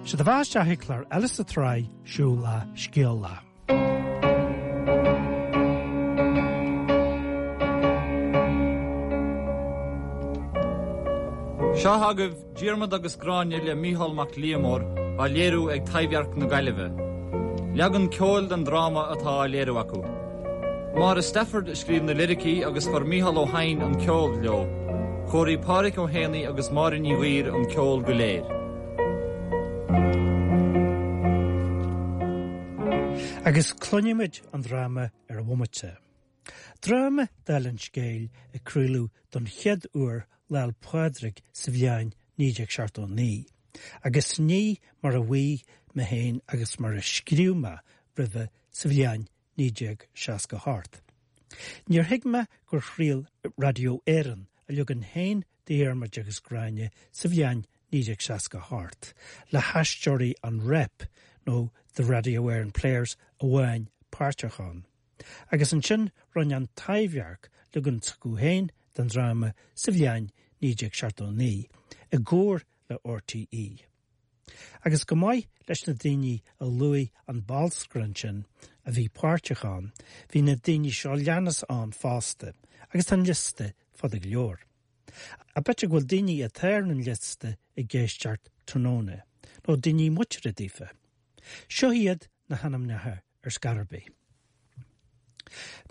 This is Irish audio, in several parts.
Sé do bheatha isteach ag clár eile sa tsraith Siúl Lá, Scéal Lá. Seo agaibh Diarmaid agus Gráinne le Mícheál Mac Liammóir á léiriú ag Taibhdhearc na Gaillimhe. Leagan ceoil den dráma atá á léiriú acu. Máire Stafford a scríobh na liricí agus chuir Mícheál Ó hEidhin an ceol leo. Chóirigh Pádhraic Ó hÉanaí agus Máire Ní Ghaoir an ceol go léir. Agus cluinfimid an dráma ar an bhomaite. Dráma, dála an scéil, a craoladh don chéad uair Lá 'le Pádraig sa bhliain 1979, agus ní mar a mhaígh mé féin agus mar a scríobh mé roimhe sa bhliain 1968. Níor thuig mé gur chraol Radio Éireann a leagan féin de Dhiarmaid agus Gráinne sa bhliain 1968, le haisteoirí an Rep nó The Radio Éireann Players amháin páirteach ann. Agus ansin rinne an Taibhdhearc leagan s'acu féin den dráma sa bhliain 1979, i gcomhar le RTÉ. Agus chomh maith leis na daoine a luaigh an bolscaire ansin a bhí páirteach ann, bhí na daoine seo leanas ann fosta, agus tá an liosta fada go leor. Ach b'fhéidir go bhfuil daoine atá ar an liosta ag éisteacht tráthnóna, nó daoine muinteartha daofa. Seo iad na hainmneacha ar scor ar bith.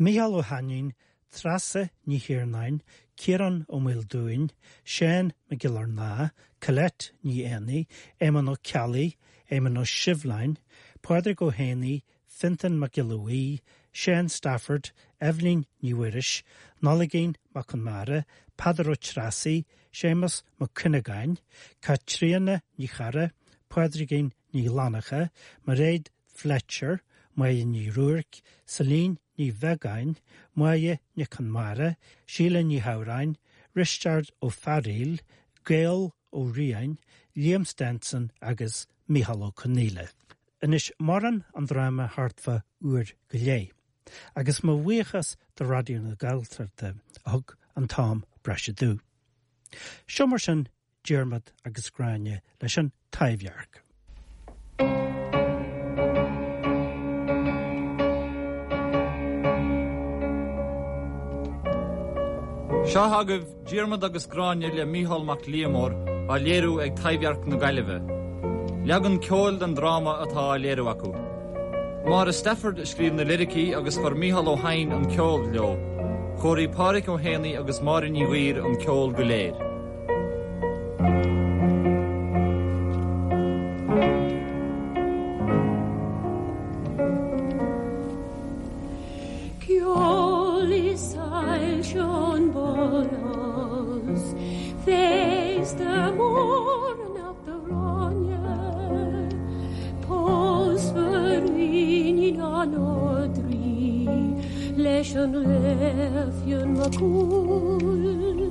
Mícheál Ó hAinnín, Treasa Ní Thiarnáin, Ciarán Ó Maoldúin, Seán Mac Giollarnáth, Colette Ní Éanaigh, Éamonn Ó Ceallaigh, Éamonn Ó Sibhleáin, Pádraig Ó hÉanaí, Fionntán Mac Giolla Bhuí, Seán Stafford, Eibhlín Ní Mhuiris, Nollaigín Mac Conmara, Peadar Ó Treasaigh, Séamus Mac Cuinneagáin, Caitríona Ní Charra, Pádraigín Ní Fhlannacha, Mairéad Fletcher, Máire Ní Ruairc, Celine Ní Bheagáin, Máire Nic Conmara, Síle Ní Shamhráin, Risteard Ó Fearaíl, Gael Ó Riain, Liam Stenson agus Mícheál Ó Conghaile. Anois maireann an dráma thart fá uair go leith, agus mo bhuíochas do Raidió na Gaeltachta a thug an t-am breise domh. Seo mar sin Diarmaid agus Gráinne leis an Taibhdhearc. Seo agaibh Diarmaid agus Gráinne le Mícheál Mac Liammóir á léiriú ag Taibhdhearc na Gaillimhe. Leagan ceoil den dráma atá á léiriú acu. Máire Stafford a scríobh na liricí agus chuir Mícheál Ó hEidhin an ceol leo. Chóirigh Pádhraic Ó hÉanaí agus Máire Ní Ghaoir an ceol go léir. Ceol is soilse an ballhouse, Féasta mór anocht a Ghráinne, Pósfar iníon an Ardrí leis an Laoch Fionn Mac Cumhaill.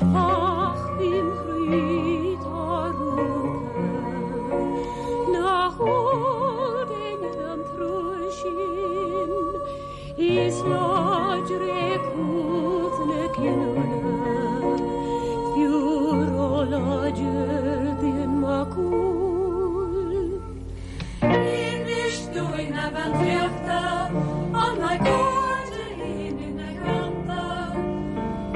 Ach im chroí tá rúnta nach eol d'éinne an trua sin. Is láidre cumhacht na cinniúna, fiú róláidir d'Fhionn Mac Cumhaill. Inis dúinn a bhean draíochta, an mbeidh cairde linn ina theannta?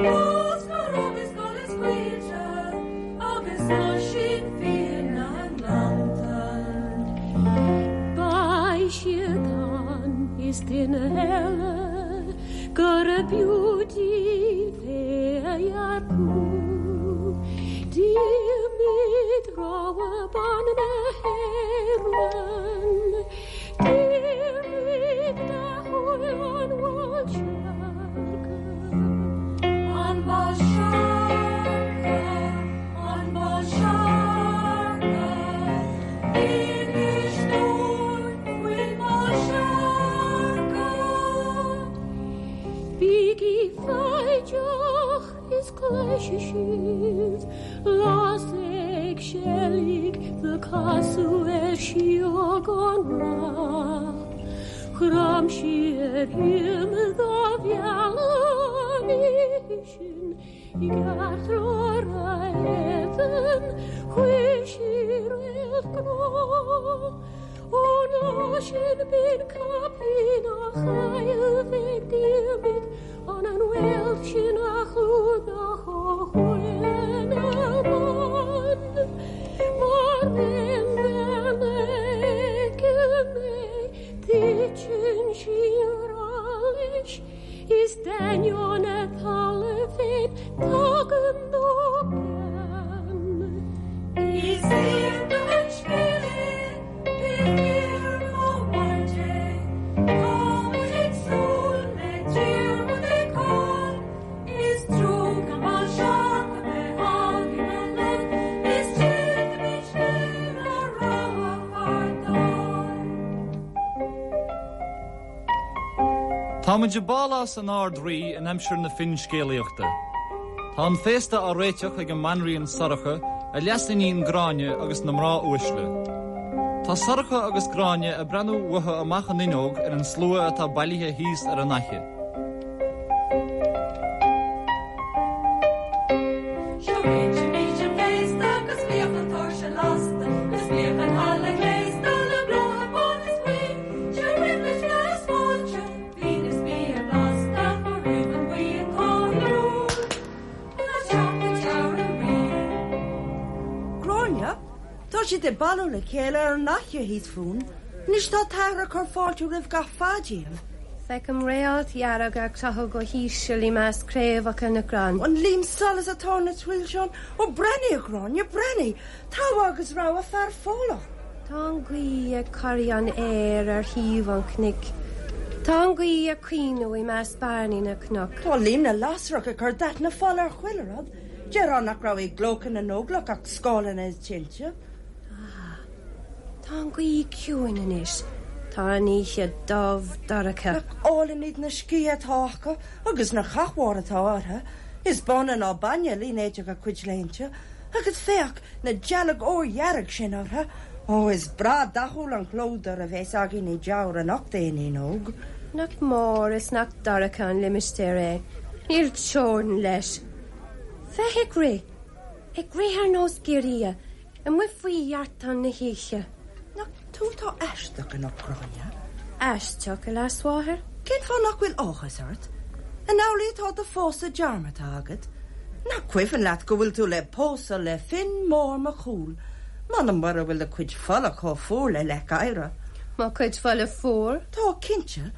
Fós go raibh is gol is scaoilte agus Oisín fiain na ngleannta. Beidh siad ann is duine eile gurb fhiú díobh é a earcú. Diarmaid rogha ban na hÉireann, Diarmaid dathúil an Bhál Seargtha. An Bál Seargtha, an Bál Seargtha, inis dúinn faoin mBál Seargtha. Bígí foighdeach is cloisfidh sibh Las ag seilg the casadh ar síog an rath. Chrom sí ar him dá mhealladh an oíche sin i gceartlár a éadain chuir sí réalt gnó. sin binn caipín a chailleadh ag Diarmaid an an réalt sin a chlúdach ó chuaille na mban mar aon bhean a fheiceann é titeann sí i ngrá leis is d'ainneoin a tola féin tagann dó gean. Is iontach an scéal é, pé fíor nó mairg é, tá muid ag súil le Diarmuid ag Con, is trua gan Mal Seach a bheith againn anocht, is déanfaimid féin ár rogha fear dár. Tá muid i bpálás an Ard-Rí in aimsir na finscéalaíochta. Tá an féasta á réiteach ag an mBanríon Sorcha, a leasiníon Gráinne agus na mná uaisle. Tá Sorcha agus Gráinne ag breathnú uathu amach an fhuinneog ar an slua atá bailithe thíos ar an fhaiche. Seo réitímid an féasta agus bíodh an tóirse lasta agus bíodh an halla gléasta le blátha bán is buí. Seo roimh le is fáilte, fíon is bia blasta roimh an bhuíon cáiliúil ina teach i dTeamhair an Rí. Gráinne, Tá siad ag bailiú le chéile ar an fhaiche thíos fúinn. Anois tá t'athair ag cur fáilte roimh gach fear díobh. Feicim réalt dhearg ag croitheadh go híseal i measc craobhacha na gcrann. An liam solais atá ina shoilseán. Ó, breathnaigh, a Ghráinne, breathnaigh! Togha agus rogha fear fodhlach. Tá an ghaoth ag corraí an fhéir ar thaobh an chnoic. Tá an ghaoth ag caoineadh i measc bairnigh na gcnoc. Tá Liam na lasrach ag cur dath na fola ar chuile rud. Déarfá nach raibh i gclóca na nÓglach ach scáileanna is tinte. Ah, tá an ghaoth ciúin anois. Tá an oíche dubh dorcha. Nach álainn iad na sciatha atá acu agus na cathmhaoir atá orthu. Is báine ná bainne línéadach a gcuid léinte. Agus féach, na dealg órdhearg sin orthu. Ó, is breá dathúil an clódar a bheas againn i dTeamhair anocht, a iníon óg. Nach mór is nach dorcha an limistéar é. Níl teorainn leis. Féach ag rith, ag rith ar nós giorria, amuigh faoi dheartán na hoíche. Nach tú atá aisteach anocht, Gráinne? Aisteach, a leasmháthair? Cén fáth nach bhfuil áthas ort? An amhlaidh atá do phósadh dearmadta agat? Nach cuimhin leat go bhfuil tú le pósadh le Finn Mór Mac Cumhaill? M'anam mura bhfuil do chuid fola chomh fuar le leac oighre. Mo chuid fola fuar? Tá, cinnte.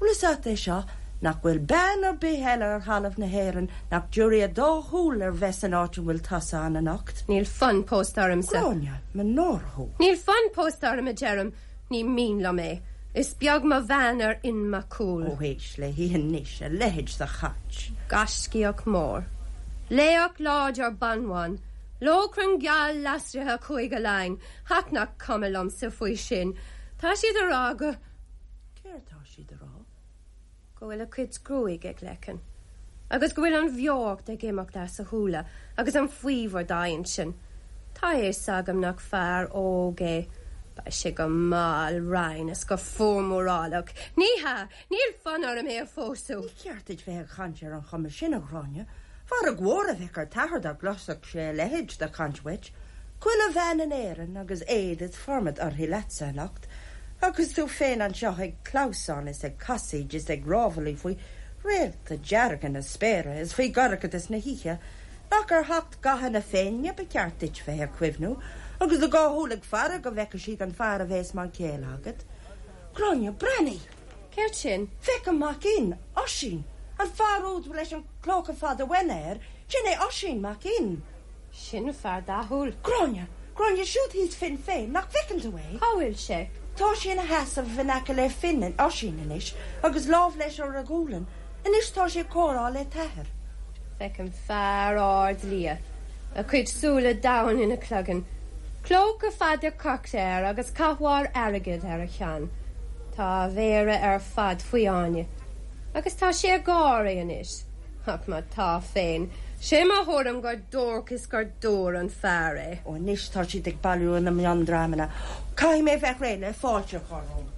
Bhfuil fhios a't é seo, nach bhfuil bean ar bith eile ar thalamh na hÉireann nach dtiúrfaidh a dá shúil ar bheith san áit a bhfuil tusa ann anocht? Níl fonn pósta ormsa. Gráinne, mo náire thú. Níl fonn pósta orm, a deirim. Ní mian liom é. Is beag mo bhean ar Fhionn Mac Cumhaill. Ó éist léi anois, a leithéid de chaint. Gaiscíoch mór. Laoch láidir banbhan. Lóchrann geal lasraithe Chúige Laighean. Ach nach cuma liomsa faoi sin. Tá siad a rá go. Céard tá siad a rá? Go bhfuil a chuid gruaige ag leiceann. Agus go bhfuil an bheocht ag imeacht as a shúile agus an faobhar dá intinn. Tá a fhios agam nach fear óg é. Beidh sé go mall righin is go fuar mórálach. Ní hea, níl fonn orm é a phósadh. Ní ceart duit bheith ag caint ar an chuma sin, a Ghráinne. Fearg mhór a bheadh ar t'athair dá gcloisfeadh sé a leithéid de chaint uait. Chuile bhean in Éirinn agus éad is formad uirthi leatsa anocht, agus tú féin anseo ag clamhsán is ag casaoid is ag rámhaillí faoi réalta dearga na spéire is faoi dhorchadas na hoíche. Nach ar theacht gatha na Féinne ba cheart duit bheith ag cuimhniú, agus do dhá shúil ag faire go bhfeice siad an fear a bheas mar chéile agat. Gráinne, breathnaigh! Céard sin? Féach an Mac Fhinn, Oisín! An fear úd leis an clóca fada uaine air, sin é Oisín Mac Fhinn! Sin fear dathúil. Gráinne! Gráinne, siúd thíos Finn féin, nach bhfeiceann tú é? Cá bhfuil sé? Tá sé ina sheasamh in aice le Finn, Oisín, anois, agus lámh leis ar a ghualainn. Anois tá sé ag comhrá le t'athair. Feicim fear ard liath, a chuid súile domhain ina chloigeann, clóca fada corcra air agus cathmhaoir airgid ar a cheann. Tá a mhéara ar fad faoi fháinne. Agus tá sé ag gáirí anois. Ach má tá féin, 'sé mo thuairim gur duairc is gur dúr an fear é. Ó anois tá siad ag bailiú ina miondreamanna. Caithfidh mé bheith réidh le fáilte a chur rompu.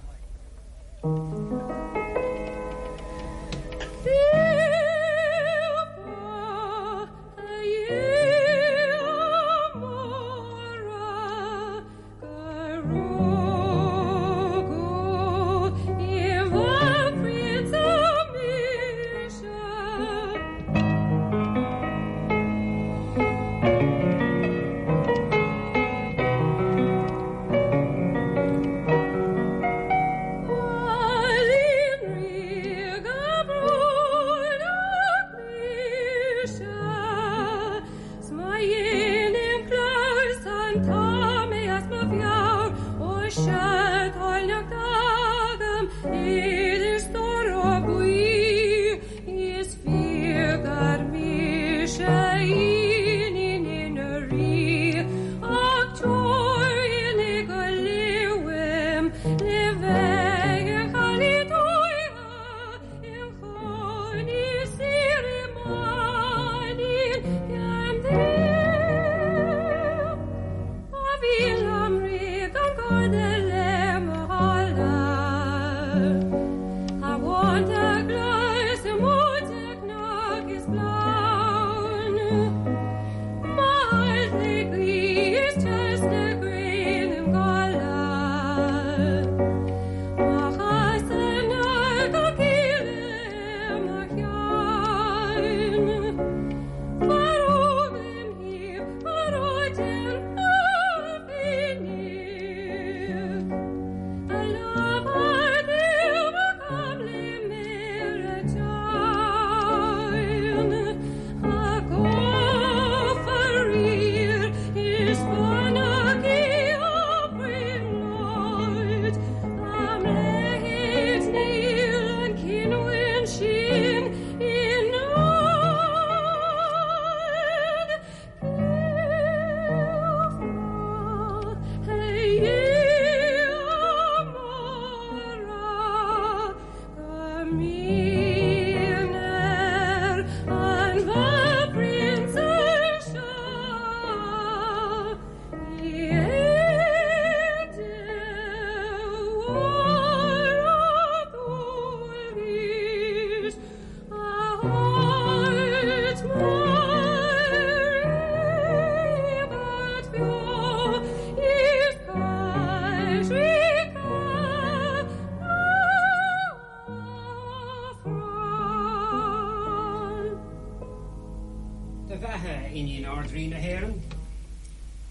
Do bheatha, a Iníon Ard-Rí na hÉireann.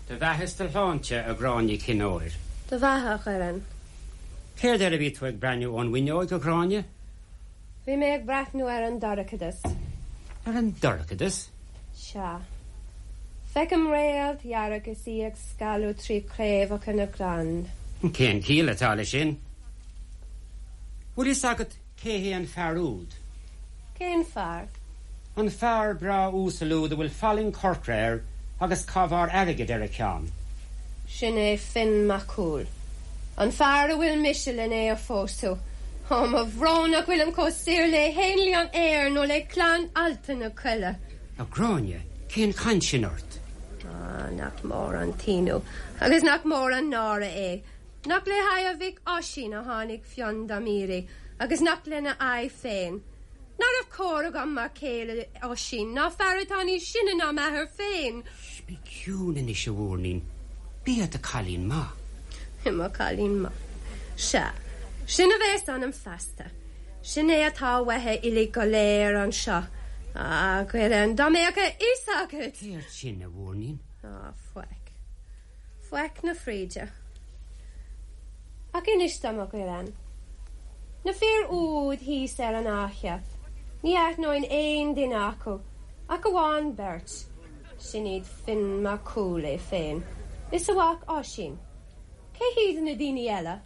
Do bheatha is do shláinte, a Ghráinne Chinn Óir. Do bheatha, a Dhoireann. Céard air a bhí tú ag breathnú ón bhfuinneoig, a Ghráinne? Bhí mé ag breathnú ar an dorchadas. Ar an dorchadas? Sea. Feicim réalt dhearg is í ag scaladh trí chraobhacha na gcrann. Cén chiall atá leis sin? Bhfuil fhios agat cé hé an fear úd? Cén fear? An fear breá uasal úd a bhfuil fallaing chorcra air agus cabhár airgid ar a cheann. Sin é Fionn Mac Cumhaill. An fear a bhfuil mise len é a phósadh. Ó, mo bhrón nach bhfuilim chomh saor le héanlaith an aeir nó le clann ealta na coille. A Ghráinne, cén chaint sin ort? Á, nach mór an t-ionadh agus nach mór an náire é. Nach le haghaidh a mhic Oisín a tháinig Fionn dom iarraidh agus nach lena aghaidh féin. Ná raibh cóir agam mar chéile Oisín ná fear atá níos sine ná m'athair féin. Bí ciúin anois, a mhúirnín. Bí i do chailín maith. I mo chailín maith. Sea, sin a bheas ionam feasta. Sin é atá uathu uilig go léir anseo. A Dhoireann, dá mbeadh a fhios agat! Céard sin, a mhúirnín? Á, faic. Faic na fríde. Ach inis dom, a Dhoireann. Na fir úd thíos ar an fhaiche, ní aithneoinn aon duine acu, ach amháin beirt, sin iad Fionn Mac Cumhaill é féin, is a mhac Oisín. Cé hiad na daoine eile?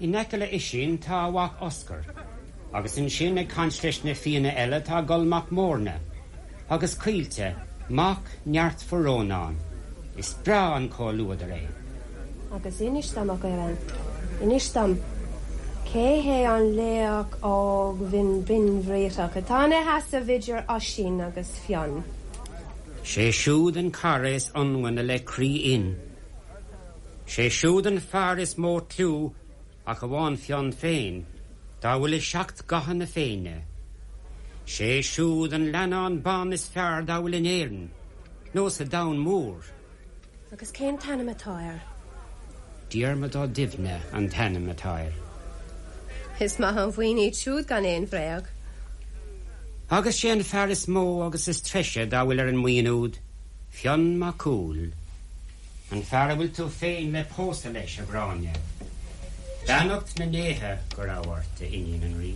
In aice le Oisín tá a mhac Oscar, agus ansin ag caint leis na Fianna eile tá Goll Mac Móirne, agus Caoilte, mac Neartmhair Rónáin. Is breá an comhluadar é. Agus inis dom, a Dhoireann, inis dom, cé hé an laoch óg bhinn binnbhriathrach atá ina sheasamh idir Oisín agus Fionn? Sé siúd an cara is ionmhaine le croí Fhinn. Sé siúd an fear is mó cliú, ach amháin Fionn féin, dá bhfuil i seacht gcatha na Féinne. Sé siúd an leannán ban is fearr dá bhfuil in Éirinn, nó sa domhan mór. Agus cén t-ainm atá air? Diarmaid Ó Duibhne an t-ainm atá air. Is maith an bhuíon iad siúd gan aon bhréag. Agus sé an fear is mó agus is treise dá bhfuil ar an mbuíon úd, Fionn Mac Cumhaill. An fear a bhfuil tú féin le pósadh leis, a Ghráinne. Beannacht na ndéithe go raibh ort, a iníon an Rí.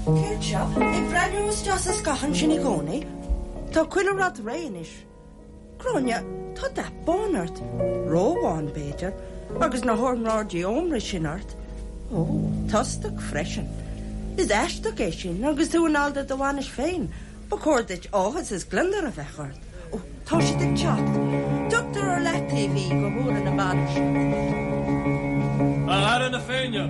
Céard seo? Ag breathnú isteach sa scáthán sin i gcónaí? Tá chuile rud réidh anois. Gráinne, tá. Tá dath bán ort, róbhán, b'fhéidir, agus na hornáidí ómra sin ort. Ó, tostach freisin. Is aisteach é sin agus tú i ndáil do do bhainis féin. Ba chóir duit áthas is gliondar a bheith ort. Ó, tá siad ag teacht. Tugtar ar leataobh í go huaire na bainise. A fheara na Féinne!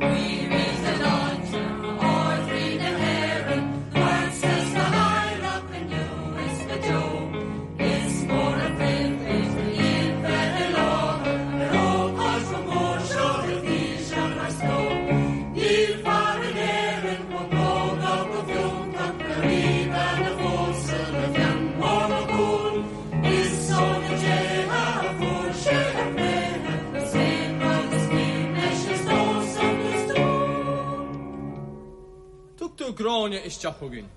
Guímid do shláinte, Ard-Rí na hÉireann, duitse 's do theaghlach inniu is go deo. Is mór an phribhléid do Fhionn bheith i láthair ar ócáid chomh mór seo i bhfísean ár sló. Níl fear in Éirinn chomh beo ná chomh fiúntach le ríbhean a phósadh le Fionn Mór Mac Cumhaill. Is ó na déithe a fuair sé a thréithe, is aon rud is mian leis is dósan is dúinn. Tugtar Gráinne isteach chugainn.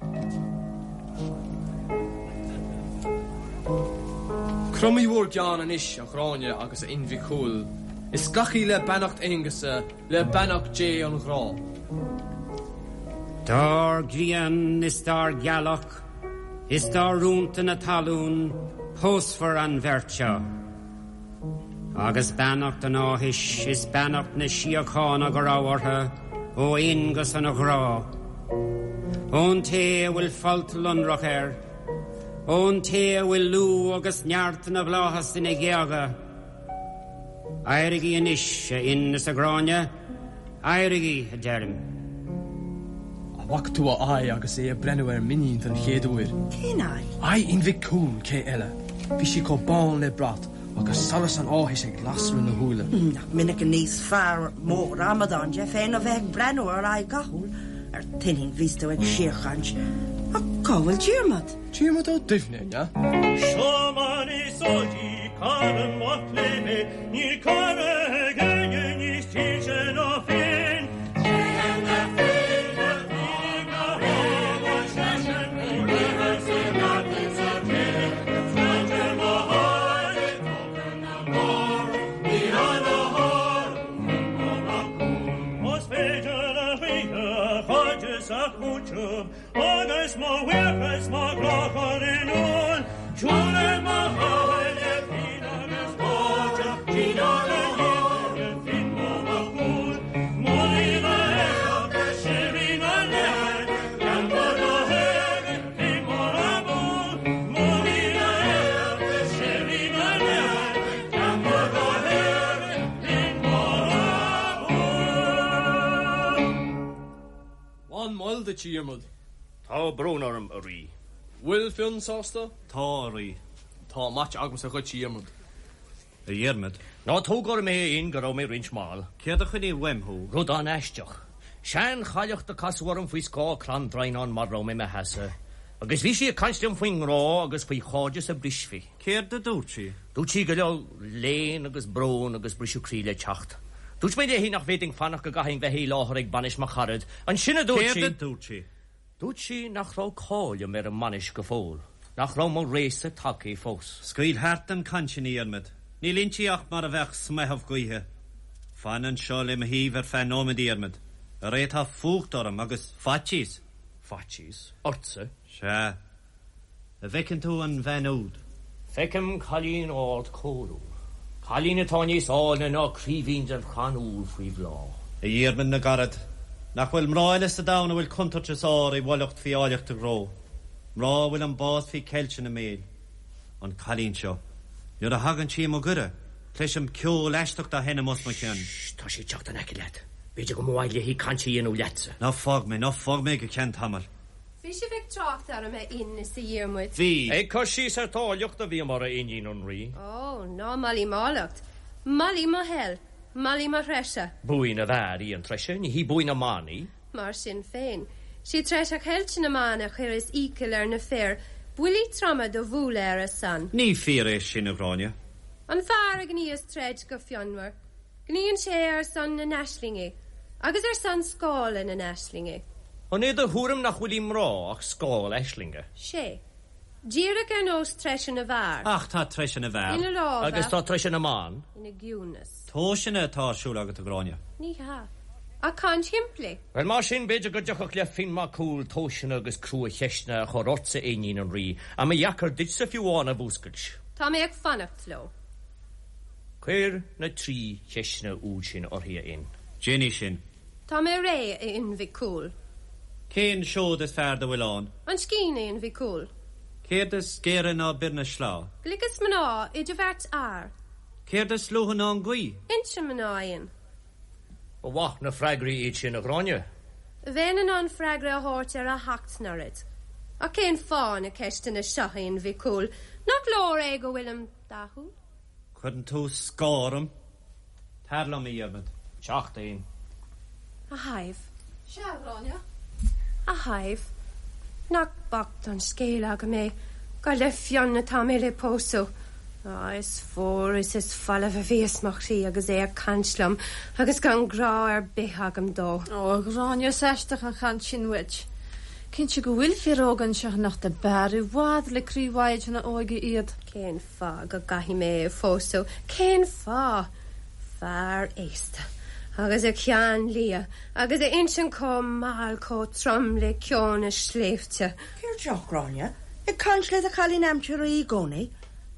Cromaigí bhur gceann anois, a Ghráinne agus a Fhinn Mhic Cumhaill, is glacaigí le beannacht Aonghusa, le beannacht Dé an ghrá. Dár ghrian is dár ghealach is dá rúnta na talún pósfar an bheirt seo. Agus beannacht an áthais is beannacht na síochána go raibh orthu ó Aonghus an ghrá. Ón té a bhfuil folt lonrach air, ón té a bhfuil lúth agus neart na bhflaitheas ina ghéaga, Éirigí anois, a Fhinn is a Ghráinne, éirigí, a deirim. An bhfaca tú a aghaidh agus é ag breathnú ar m'iníon den chéad uair? Cén aghaidh? Aghaidh Fhinn Mhic Cumhaill, cé eile? Bhí sí chomh bán le brat agus solas an áthais ag lasadh ina shúile. Nach minic a níos fear mór amadán de féin ó bheith ag breathnú ar aghaidh dhathúil ar t'iníon bhíos tú ag síorchaint. Ach cá bhfuil Diarmaid? Diarmaid Ó Duibhne, an ea? Seo mar is eol di cara maith léi, níl cara ag éinne níos dílse ná Finn. Téann na Finne ina thógáil seisean, rinne sé neart sa tine, sláinte mo thaire, tógann na mara, ní an a shárú Finn Mór Mac Cumhaill. Is féidir le hoíche a chairdeas a chúiteamh, Agus mo bhuíochas, mo ghrá chur in iúl, Siúlann mo chathair le pian agus cairde, Trínár ndíbhe Finn Mór Mac Cumhaill. Molaim a éacht, síoraí na neamhaird, Ceantar na hÉireann, Finn Mór abú. Molaim a éacht, síoraí na neamhaird, Ceantar na hÉireann, Finn Mór abú. An mall duit, a Dhiarmaid. Tá brón orm, a Rí. Bhfuil Fionn sásta? Tá, a Rí. Tá maite agamsa dhuit, a Dhiarmaid. A Dhiarmaid. Ná tóg orm é, a Fhinn, go raibh mé roinnt mall. Céard a choinnigh uaim thú? Rud an-aisteach. Seanchailleach do casadh orm faoi scáth crann draighneáin mar raibh mé i mo sheasamh, agus bhí sí ag caint liom faoin ngrá agus faoi chairdeas a brisfí. Céard a dúirt sí? Dúirt sí go raibh léan agus brón agus briseadh croí le teacht. Dúirt mé léi nach bhféadfainn fanacht go gcaithfinn bheith i láthair ag bainis mo charad. Ansin a dúirt sí. Céard a dúirt sí? Dúirt sí nach raibh cáil liom ar an mbainis go fóill, nach raibh mo réasa tagtha fós. Scaoil thart an chaint sin, a Dhiarmaid. Níl inti ach mar a bheadh smeitheamh gaoithe. Fan anseo le mo thaobh ar feadh nóiméid, a Dhiarmaid. Arae tá fuacht orm agus faitíos. Faitíos? Ortsa? Sea. An bhfeiceann tú an bhean úd? Feicim cailín ard cóiriúil. Cailín atá níos áilne ná craoibhín den chrann úll faoi bhláth. A Dhiarmaid na gcarad, nach bhfuil mná eile sa domhan a bhfuil contúirt is ár i bhfulacht faoi áilleacht a gcró? Mná a bhfuil an bás faoi cheilt ina mbéil? An cailín seo, nuair a thagann sí i mo ghaire, cloisim ceol aisteach dá sheinm os mo chionn. Sh! Tá sí ag teacht in aice leat. B'fhéidir go mba mhaith léi caint a dhéanamh leatsa. Ná fág mé, ná fág mé go ceann tamaill. Bhí sibh ag trácht orm, a Fhinn is a Dhiarmuid. Bhí. Ag cur síos ar t'áilleacht a bhíomar, a iníon an Rí. Ó, ná molaim m'áilleacht. Molaim mo thoil. Molaim mo threise. Buaidh na bhfear í an treise, ní hí buaidh na mban í. Mar sin féin, 'sí treise cheilte na mban a chuireas iachall ar na fir buillí troma do bhualadh ar a son. Ní fíor é sin, a Ghráinne. An fear a ghníos troid go fionmhar, Gníonn sé ar son na n-aislingí agus ar son scála na n-aislingí. An é do thuairim nach bhfuil i mná ach scáil aislinge? Sé. Díreach ar nós treise na bhfear. Ach tá treise na bhfear. Ina lámha. Agus tá treise na mban. Ina gciúnas. Tomhaiseanna atá ar siúl agat, a Ghráinne. Ní hea. Ach caint shimplí. Bhuel, mar sin, b'fhéidir go dtiocfadh le Fionn Mac Cumhaill tomhaiseanna agus crua-cheisteanna a chur ortsa, a iníon an Rí, a mba dheacair duitse fiú amháin a mhúscailt. Tá mé ag fanacht leo. Cuir na 3 cheisteanna úd sin uirthi, a Fhinn. Déanfaidh sin. Tá mé réidh, a Fhinn Mhic Cumhaill. Cén seod is fearr dá bhfuil ann? An scian, a Fhinn Mhic Cumhaill. Céard is géire ná bior na sleá? Gliceas mná idir bheirt fhear. Céard is luaithe ná an ghaoth? Inse mná, a Fhinn. Ba mhaith na freagraí iad sin, a Ghráinne. Bheinn in ann freagra a thabhairt ar a sheacht n-oiread. Ach cén fáth na ceisteanna seo, a Fhinn Mhic Cumhaill? Nach leor é go bhfuilim dathúil? Cuireann tú scáth orm. Tar liom, a Dhiarmaid. Teacht, a Fhinn. A Shadhbh. Sea, a Ghráinne? A Shadhbh. Nach bocht an scéal agam é gur le Fionn atá mé le pósadh. Á, is fuar is is folamh a bhíos mo chroí agus é ag caint liom agus gan grá ar bith agam dó. Ó, a Ghráinne, is aisteach an chaint sin uait. Cinnte go bhfuil fir óga anseo anocht ab fhearr i bhfad le croí mhaighdean na hóige iad. Cén fáth go gcaithfidh mé é a phósadh? Cén fáth? Fear aosta, agus a cheann liath, agus a intinn chomh mall chomh trom le ceo na sléibhte. Céard seo, a Ghráinne? Ag caint le do chailín aimsire i gcónaí?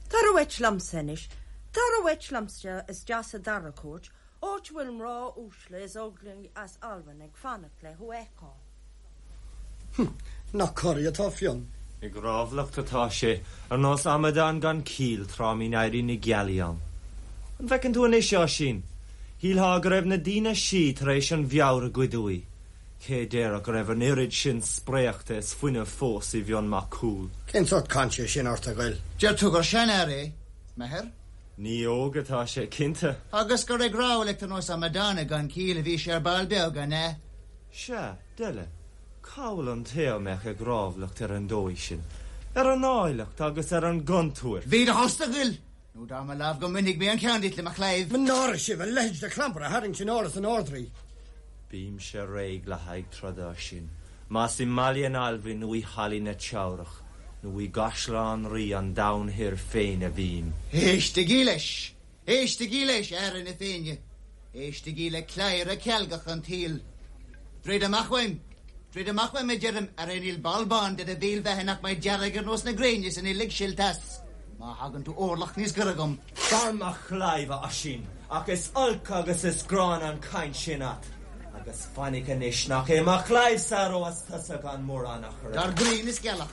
Tar uait liomsa anois. Tar uait liomsa isteach sa dara cúirt, áit a bhfuil mná uaisle is óglaigh as Albain ag fanacht le thú a fheiceáil. Nach corraithe atá Fionn. Ag rámhlacht atá sé, ar nós amadán gan ciall tráth a mbíonn éirí na gealaí ann. An bhfeiceann tú anois, a Oisín? Shíltheá go raibh na daoine sí tar éis an mheabhair a ghoid uaidh. Cé déarfadh go raibh an oiread sin spréachta is fuinnimh fós i bhFionn Mac Cumhaill? Cén sórt cainte é sin ort, a Ghoill? Deir tú gur seanfhear é, m'athair? Ní óg atá sé, cinnte. Agus gur ag rámhlacht ar nós amadáin gan ciall a bhí sé ar ball beag, an ea? Sea, deile, cá bhfuil an té a mbeadh ag rámhlacht ar an dóigh sin, ar an áilleacht agus ar an gcontúirt? Bí i do thost, a Ghoill, nó dar mo lámh go mbainfidh mé an ceann díot le mo chlaíomh. Mo náire sibh, a leithéid de chlampar a tharraingt in áras an Ardrí! Bímse réidh le haghaidh troda, Oisín, más i mBaile an Almhain nó i Hallaí na Teamhrach nó i gCaisleán Rí an Domhain Thoir féin a bhím. Éistigí leis! Éistigí leis, a fheara na Féinne! Éistigí le cladhaire cealgach an tsaoil! Druid amach uaim! Druid amach uaim, a deirim, arae níl ball bán de do bhéal bheatha nach mbeidh dearg ar nós na gréine san uilig silt as, má thagann tú orlach níos gaire dhom. Dar mo chlaíomh, a Oisín, ach is olc agus is gránna an chaint sin a't, agus fainic anois nach é mo chlaíomhsa a reoas tusa gan mórán achair. Dar grian is gealach.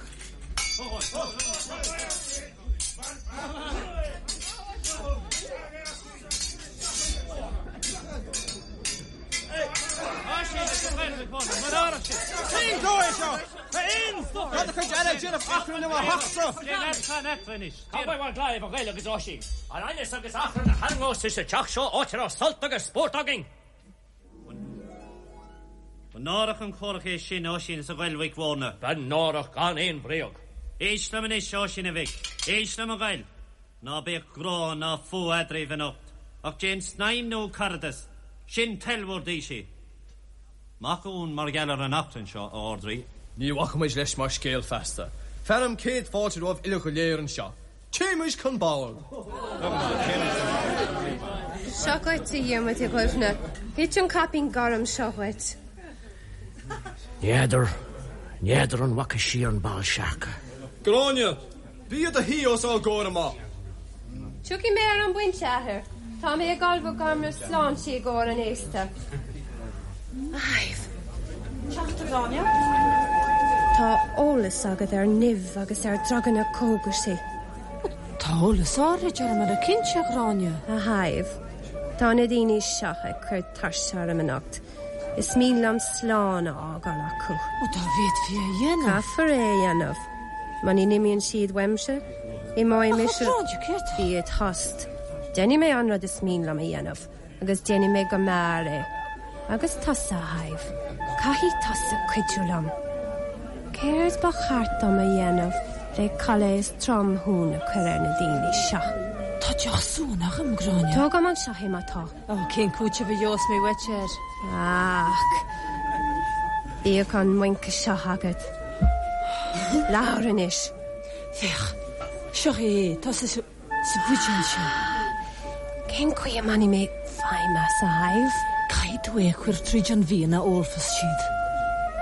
Cén dóigh é seo? A Fhinn! Tá do chuid eile ag déanamh achrainn i mo theachsa! Cá bhfuil bhur gclaíomh, a Ghoill agus a Oisín? An aighneas agus achrann a tharraingeos tú sa teach seo, áit a raibh sult agus spórt againn? Ba náireach an comhrac é sin, a Oisín is a Ghoill Mhic Mhórna. Ba náireach gan aon bhréag. Éist liom anois, a Oisín a mhic. Éist liom, a Ghoill. Ná bíodh grá ná fuath eadraibh anocht, ach déan snaidhm nua caradas. Sin toil bhur dtaoisigh. Mac mar gheall ar an achrann seo, a Ardrí. Ní bhacfaimid leis mar scéal feasta. Fearaim céad fáilte romhaibh uile go léir anseo. Téimis chun boird! Seo dhuit, a Dhiarmuid, a Dhuibhne. Thit an caipín gorm seo dhuit. N'fheadar, n'fheadar an bhfaca sí an Bál Searca. Gráinne, bí i do shuí os ár gcomhair amach. Tiocfaidh mé ar an bpointe, a Athair. Tá mé ag ullmhú gairme sláinte i gcomhair an fhéasta. A Shadhbh. Teacht, a Ghráinne. Tá eolas agat ar nimh agus ar druganna cógaisí. Tá eolas áirid orm ar cinnte, a Ghráinne. A Shadhbh, tá na daoine seo ag cur tuirse orm anocht. Is mian liom slán a fhágáil acu. Ó, dá bhféadfaí é a dhéanamh. Caithfear é a dhéanamh. Muna n-imíonn siad uaimse, imeoidh mise. Ach, a Ghráinne, céard? Bí id thost. Déanfaidh mé an rud is mian liom a dhéanamh. Agus déanfaidh mé go mear é. Agus tusa, a Shadhbh, caithfidh tusa cuidiú liom. Céard ba cheart dom a dhéanamh le culaith is tromshuan a chur ar na daoine seo? Tá deoch suan agam, Gráinne. Tóg agam anseo é má tá. Ó, cén cúiteamh a gheobhas mé uait air? Ach, bíodh an muince seo agat. Labhair anois. Féach, seo é, tá sé sa Sa bhuidéal seo. Cén chaoi a mbainfidh mé feidhm as, a Shadhbh? Caithfidh tú é a chur tríd an bhfíon a ólfas siad.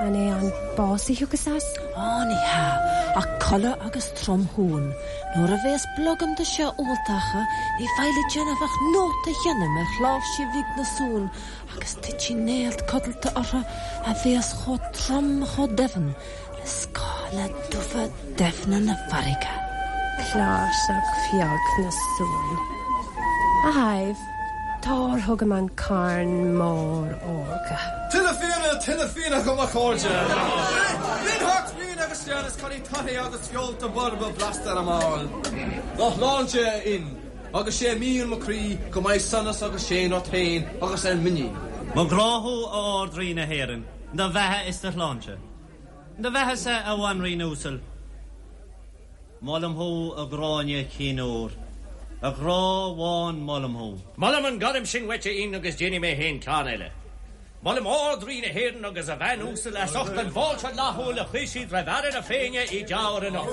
An é an bás a thiocfas as? Á, ní hea, ach codladh agus tromshuan. Nuair a bhéas blogam de seo ólta acu, ní bheidh le déanamh ach nóta a sheinm ar chláirsigh bhig na suan agus titfidh néalt codlata orthu a bhéas chomh trom chomh doimhin le scáile dubha doimhne na farraige. Cláirseach bheag na suan. A Shadhbh, tabhair chugam an carn mór órga. Tuilleadh fíona, tuilleadh fíona agam a chairde! Binn thart fíon agus sean is cailín taithí agus feolta borba blasta ar a mball. Dá shláinte, a Fhinn, agus sé mian mo chroí go mbeidh sonas agus séan ort féin agus ar m'iníon. Mo ghrá thú, a Ard-Rí na hÉireann, do bheatha is do shláinte. Do bheatha-sa, a bhanríon uasal. Molaim thú, a Ghráinne chinn óir, a ghrá bháin molaim thú. Molaim an gairm sin uait, a Fhinn, agus déanfaidh mé féin ceann eile. Molaim Ard-Rí na hÉireann agus a bhean uasal as ucht an bhfáilte fhlaithiúil a chuir siad roimh fheara na Féinne i dTeamhair anocht.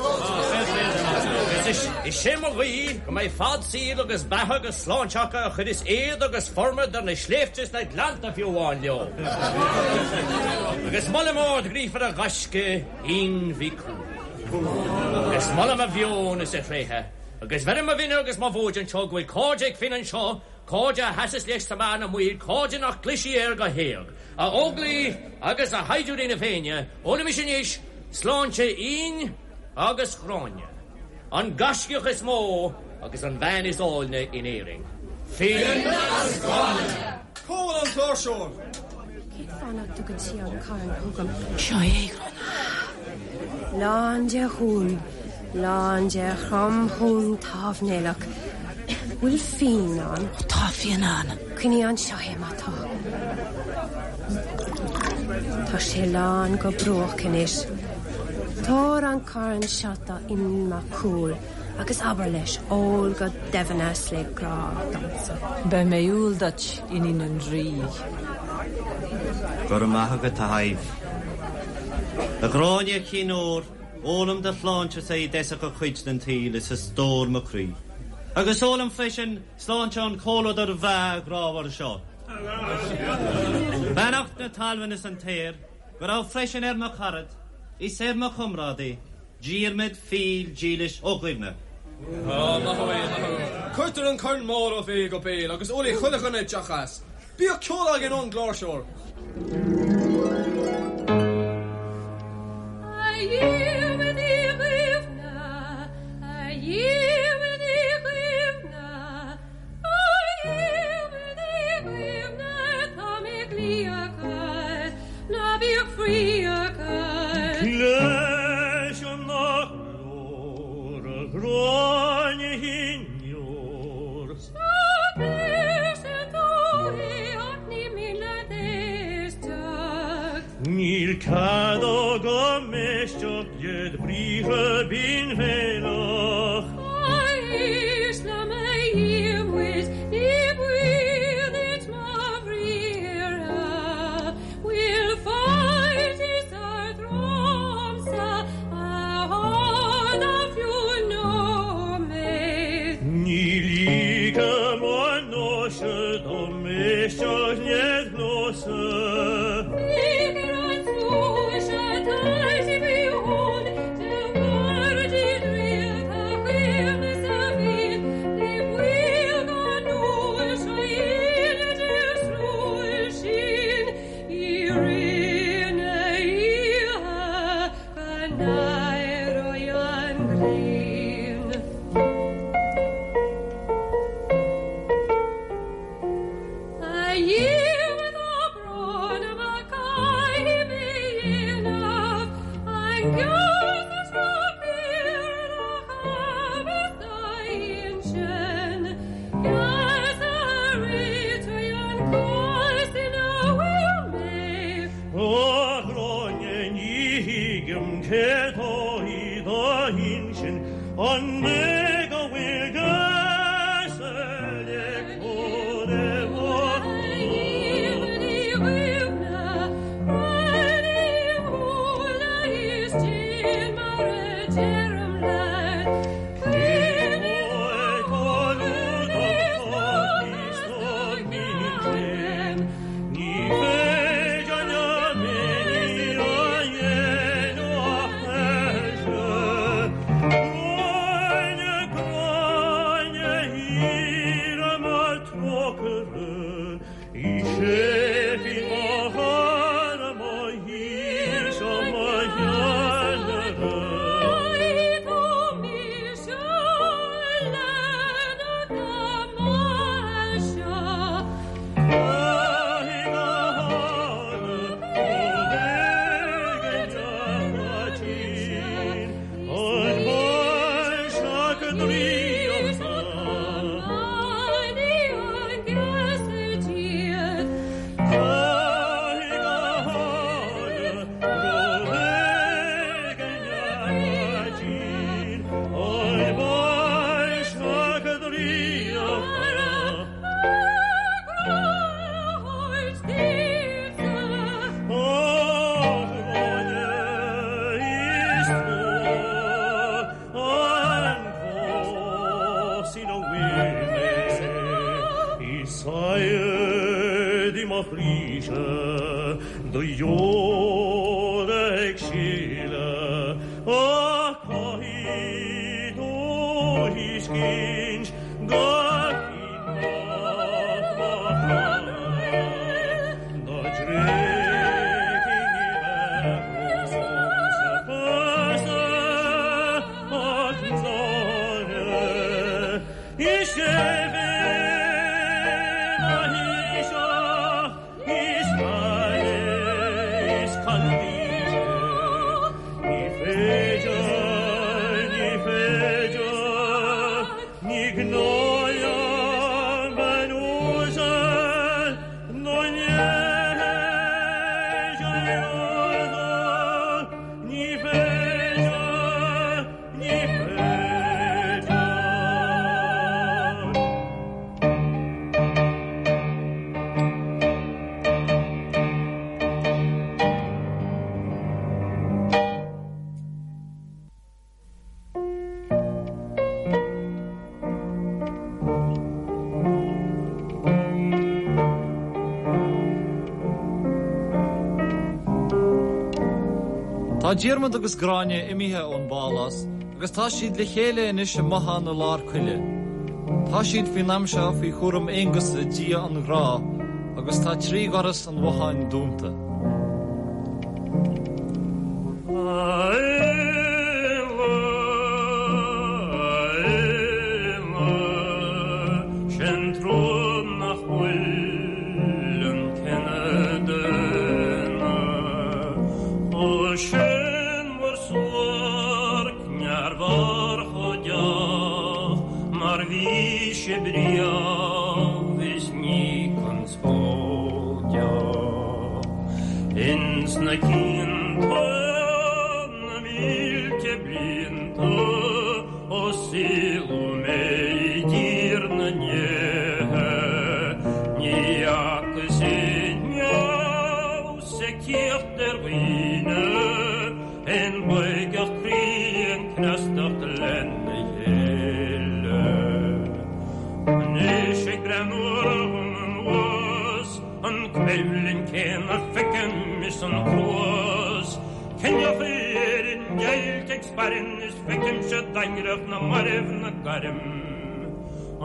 Agus is é mo ghuí go mbeidh fad saoil agus beatha agus sláinte acu a chuireas éad agus formad ar na sléibhte is na gleannta fiú amháin leo. Agus molaim ard-ghríofar a ghaisce, Fhinn Mhic Cumhaill. Agus molaim a mheon is a thréithe. Agus bheirim mo mhine agus mo mhóid anseo go bhfuil cairde ag Finn anseo, cairde a sheasas leis sa meath na maoil, cairde nach gclisfidh air go héag. A Óglaigh agus a shaighdiúirí na Féinne, ólaimis anois sláinte Fhinn agus Ghráinne, an gaiscíoch is mó agus an bhean is áilne in Éirinn. Finn agus Gráinne! Cá bhfuil an cláirseoir? Cén fáth nach dtugann sí an carn chugam? Seo é, a Ghráinne. Lán de shuan, lán de thromshuan támhnéalach. Bhfuil fíon ann? Ó, tá fíon ann. Coinnigh anseo é má tá. Tá sé lán go bruach anois. Tabhair an carn seo do Fhionn Mac Cumhaill agus abair leis ól go doimhin as le grá domsa. Beidh mé umhal duit, iníon an Rí. Go raibh maith agat, a Shadhbh. A Ghráinne chinn óir, ólaim do shláinte-sa i dtosach a chuid den tsaol is a stór mo chroí. Agus ólaim freisin sláinte an chomhluadair bhreá ghrámhair seo. Beannacht na talmhan is an t-aer go raibh freisin ar mo charad is ar mo chomrádaí, Diarmaid fial dílis Ó Duibhne. Á, maith thú é, maith thú. Cuirtear an corn mór ó bhéal go béal agus ólfaidh chuile dhuine deoch as. Bíodh ceol againn ón gcláirseoir. A Dhiarmaid Uí Dhuibhne, a Dhiarmaid Uí Dhuibhne, a Dhiarmaid Uí Dhuibhne, tá mé ag glaoch ort, ná bíodh fraoch ort. Cloisim do ghlór, a Ghráinne chinn óir. Cloisim tú é ach ní mian leat éisteacht. Níl cead agam éisteacht led bhriathra binn-bhéalach. Éist liom a Dhiarmuid, ní baol duit mo bhriathra. Bhfuil faitíos ort romhamsa a fhada fiú nóiméad? Ní ligim anois dom éisteacht led ghnó-sa. Féach ar an slua atá faoi thonn de mhairtí draíochta chaomhna sa bhfíon, ní baol gan núis a dhéanamh de slua sin i rith na hoíche go n-éireoidh an ghrian. A Dhiarmaid tá brón orm ach caithfidh mé dhéanamh an geasa seo céard a thabharfas d'intinn, geasa a réiteoidh an cás ina bhfuil mé. A Ghráinne ní thuigim céard atá i d'intinn, an é go bhfuil geasa le cur i mo A Dhiarmaid Uí Dhuibhne, breathnaigh im shúile is déan mar a deirim leat. Cuimhnigh mo chroíse do dheora ag sileadh ach caithfidh tú a thuiscint gur Fionn Mac mo chara dá dtréigfinn ní bheadh romhamsa pearsa ach náire. Is é bheith mo thaoiseach is aire is candide ní féidir, ní féidir, ní gnáth liom bean uasal nó neige a lorg, ní féidir, Ní féidir. Tá Diarmaid agus Gráinne imithe ón bpálás agus tá siad le chéile anois i mbothán i lár coille. Tá siad faoin am seo faoi chúram Aonghusa, dia an ghrá, agus tá tri dhoras an bhotháin dúnta. A Éanna, a Éanna, sé'n trua nach bhfuil an cine daonna chomh séanmhar suairc nearmhar chomh deas mar bhí sibh riamh is ní conspóideach ins na cianta na mílte blianta ó saoladh mé i dtír na ndéithe ní fhacas inniu sa cíocht ar dhaoine aon bhoigeacht croí aon cneastacht lena chéile. Anois ag breathnú orm anuas, an coimhlint chéanna feicim is an cruas. Ciníocha Éireann deighilte ag spairn is feicimse daingreacht na mairbh 'na gairm.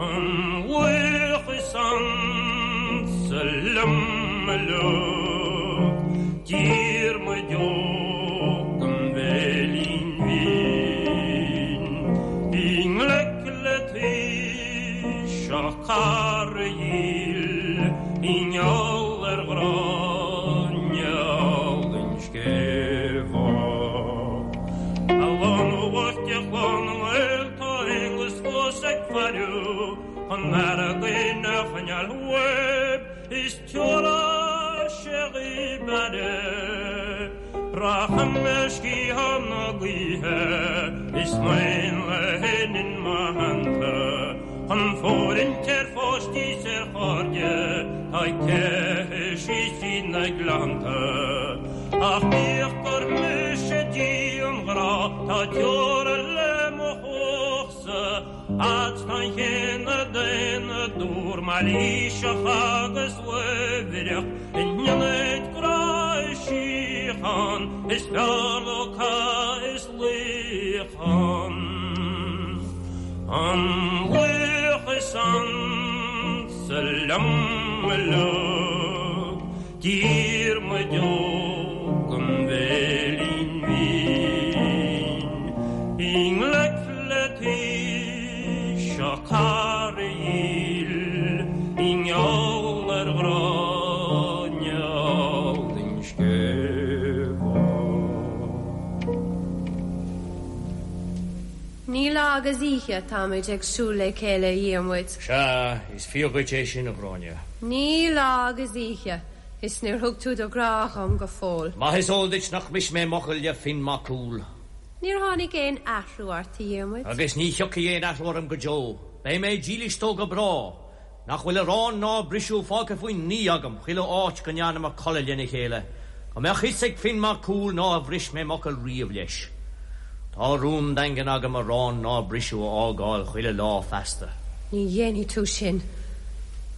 An laoch is ansa liom uileag, Diarmuid Óg an Bhéilín Bhinn, i ngleic le taoiseach cara dhil i ngeall ar Ghráinne álainn Sceimheach. A lánúin bhoicht de chlann na nGael tá Aonghus fós ag faire chun fhear a choinneáil uaibh is tiúrfaidh sé dhaoib aire. Rachaidh mé ar sciathán na gaoithe is m'éanlaith in mo theannta chun fóirithint ar pháistí 's ar chairde tá ag teitheadh síos tríd na gleannta. Ach bíodh gur mise Dia an ghrá tá teora le mo chumhachtsa fhad 's tá an chine daonna dúr mailíseach agus uaibhreach in ionad grá is síocháin is fearr leo cath is luíochán. An laoch is ansa liom uileag Diarmuid Óg an Bhéilín Bhinn i ngleic le taoiseach cara dhil i ngeall ar Ghráinne álainn Sceimheach. Ní lá agus oíche atáimid ag siúl le chéile, a Dhiarmuid. Sea, is fíor dhuit é sin, a Ghráinne. Ní lá agus oíche, is níor thug tú do ghrá dhom go fóill. Maith is eol duit nach mbris mé m'fhocal le Finn Mac Cumhaill. Níor tháinig aon athrú ort, a Dhiarmuid. Agus ní thiocfaidh aon athrú orm go deo. Beidh mé dílis dó go bráth. Nach bhfuil arán ná briseadh fágtha faoin ngaoth agam chuile áit go ndearnamar codladh lena chéile, go mbeadh fhios ag Finn Mac Cumhaill nár bhris mé m'fhocal riamh leis. Tá rún daingean agam arán ná briseadh a fhágáil chuile lá feasta. Ní dhéanfaidh tú sin.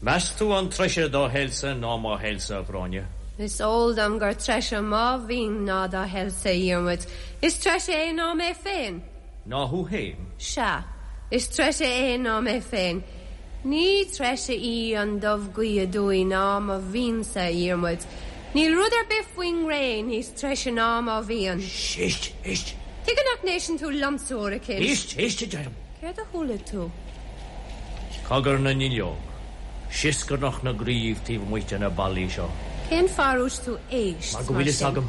Meas tú an treise do thoilsa ná mo thoilsa, a Ghráinne? Is eol dom gur treise mo mhian ná do thoilsa, a Dhiarmuid. Is treise é ná mé féin. Ná thú féin? Sea, is treise é ná mé féin. Ní treise í an dubhghaoth aduaidh ná mo mhiansa, a Dhiarmuid. Níl rud ar bith faoin ngréin níos treise ná mo mhian. Éist, éist! Tuige nach n-éisteann tú liomsa uair eicínt? Éist, éist, a deirim! Céard a chuala tú? Cogar na nduilleog, sioscarnach na gcraobh taobh amuigh de na ballaí seo. Cén fáth ar dhúirt tú éist, Mar go bhfuil fhios agam.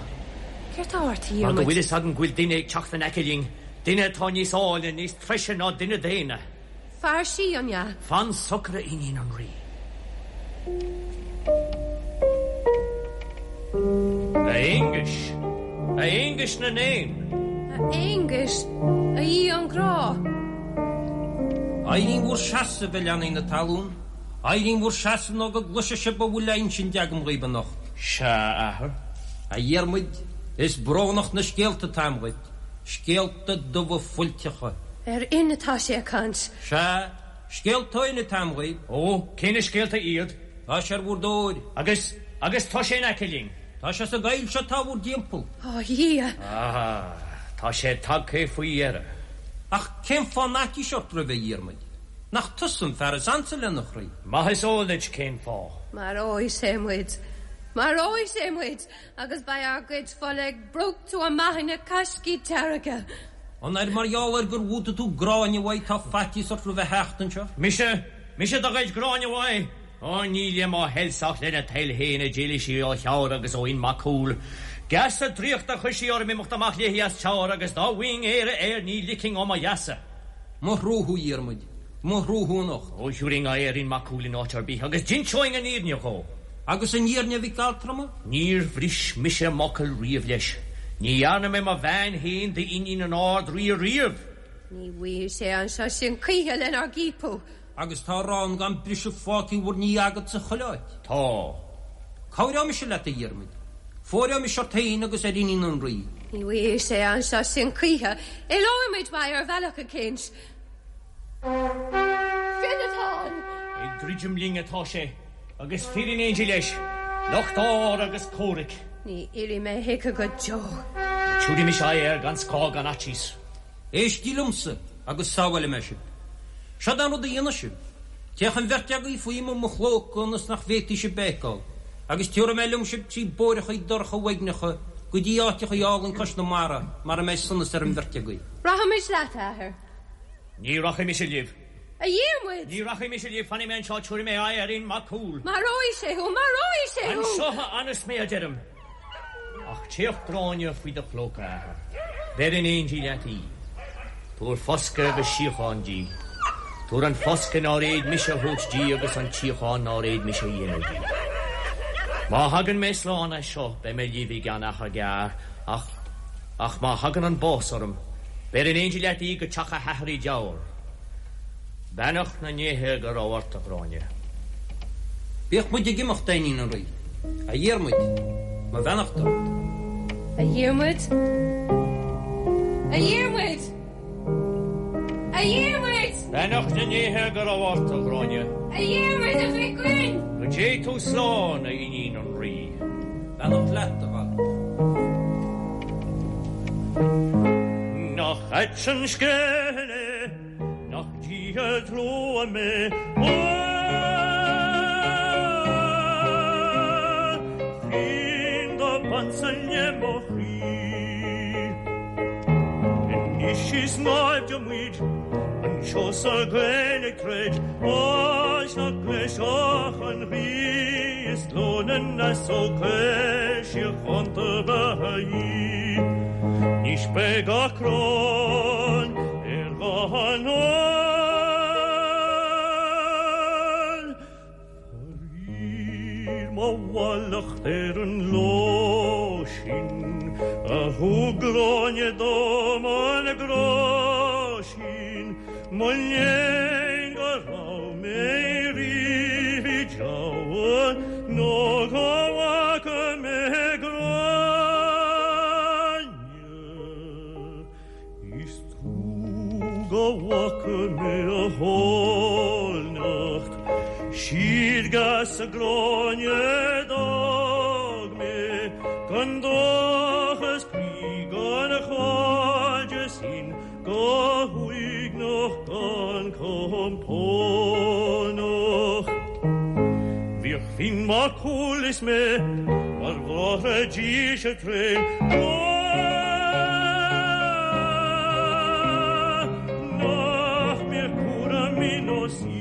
Céard tá ort, a Mar go Dhiarmuid? bhfuil fhios agam go bhfuil duine ag teacht in aice linn, duine atá níos áille, níos treise ná duine daonna. Fear sí, an ea? Fan socair, a iníon an Rí. A Aonghuis! A Aonghuis na nÉan! A Aonghuis, a Aoi an ghrá! Éirí in bhur seasamh, a leanaí na talún, éirí in bhur seasamh nó go gcloise sibh a bhfuil le insint agam dhaoibh anocht. Sea, a athair. A Dhiarmuid, is brónach na scéalta atá a'm dhuit. Scéalta dubha fuilteacha. Ar Fhionn atá sé ag caint. Sea, scéalta ó Fhionn atá a'm dhaoibh. Ó, cé na scéalta iad? Tá sé ar bhur dtóir. Agus, agus tá sé in aice linn. Tá sé sa gcoill seo atá bhur dtimpeall. Ó, a Dhia! Ah, tá sé tagtha faoi dheireadh. Ach cén fáth an fhaitíos ort roimhe, a Dhiarmaid? Nach tusa an fear is ansa lena chroí? Maith is eol duit cén fáth. Maróidh sé muid. Maróidh sé muid! Agus beidh ár gcuid fola ag brúchtadh amach ina caiscí dearga. An ar mar gheall ar gur bhútaigh tú Gráinne uaidh tá faitíos ort roimh a theacht anseo? Mise? Mise do ghoid Gráinne uaidh? Ó, ní le mo thoilsa ach lena toil féin a d'éalaigh sí ó Theamhair agus ó Fhionn Mac Cumhaill. Geasa draíochta a chuir sí orm imeacht amach léi as Teamhair agus dá bhfaighinn Éire air ní ligfinn ó mo gheasa. Mo thrua thú, a Dhiarmuid, mo thrua thú anocht. Ó, thiúrfainn aghaidh ar Fhionn Mac Cumhaill in áit ar bith agus d'inseoinn an fhírinne dhó. Agus an fhírinne, a mhic altrama? Níor bhris mise m'fhocal riamh leis. Ní dhearna mé mo bhean féin d'iníon an Ard-Rí riamh. Ní bhfaighidh sé anseo sinn choíche lenár gciapadh. Agus tá arán gan briseadh fágtha bhur ndiaidh agat sa chuile áit. Tá. Cabhróidh mise leat, a Dhiarmaid. Fóireoidh mise ort féin agus ar iníon an Rí. Ní bhfaighidh sé anseo sinn choíche. Éalóidh muid uaidh ar bhealach eicínt. Fionn atá ann! Ag druidim linn atá sé, agus fir in éindí leis, lucht áir agus comhraic. Ní éireoidh mé chuige go deo. Tabharfaidh mise aghaidh air gan scáth gan fhaitíos. Éistigí liomsa agus sábhálfaidh mé sibh. Seod é an rud a dhéanfaidh sibh. Téadh an bheirt agaibh faoi mo chlóca ionas nach bhféadfaidh sibh mé a fheiceáil, agus tiúrfaidh mé liom sibh trí bóithreachaí dorcha uaigneacha go dtí áiteachaí álainn cois na mara mar a mbeidh sonas ar an bheirt agaibh. Rachaimid leat, a athair. Ní rachaidh mise libh. A Dhiarmuid! Ní rachaidh mise libh, fanfaidh mé anseo, tabharfaidh mé aghaidh ar Fhionn Mac Cumhaill. Maróidh sé thú! Maróidh sé thú! Anseo a fhanas mé, a deirim. Ach téadh Gráinne faoi do chlóca, a athair. Beir in éindí leat í. Tabhair foscadh agus síocháin di. Tabhair an foscadh nár fhéad mise a thabhairt di agus an tsíocháin nár fhéad mise a dhéanamh di. Má thagann mé slán as seo, beidh mé libh i gceann achar gearr, ach, ach má thagann an bás orm, Beir in éindí leat í go teach a hathar i dTeamhair. Beannacht na ndéithe go raibh ort, a Ghráinne. Bíodh muid ag imeacht, a iníon an Rí. A Dhiarmuid, mo bheannacht ort. A Dhiarmuid? A Dhiarmuid! A Dhiarmuid! Beannacht na ndéithe go raibh ort, a Ghráinne. A Dhiarmuid, a mhic ghrinn! Go dté tú slán, a iníon an Rí. Beannacht leat, a mhac. Nach ait an scéal é, nach Dia trua mé, Fionn dob ansa le mo chroí. Anois is naimhde muid anseo sa gcoill ag troid, áit nach gcloisfeadh an ghaoth is glór na n-easóg caol síochánta ba í. Anois beidh achrann ar dhá anáil. Faraor mo mhallacht ar an ló sin a thug Gráinne dom an grá sin, mo léan go raibh mé riamh i dTeamhair nó go bhfaca mé Gráinne. Is trua go bhfaca mé a háilneacht. Siar sa Ghráinne d'fhág mé gan dóchas croí gan chairdeas fhinn go huaigneach gan compónach. Bhíodh Finn Mac Cumhaill is mé mar bhráithre dílse tréan go nach mbeadh cúram ná saor.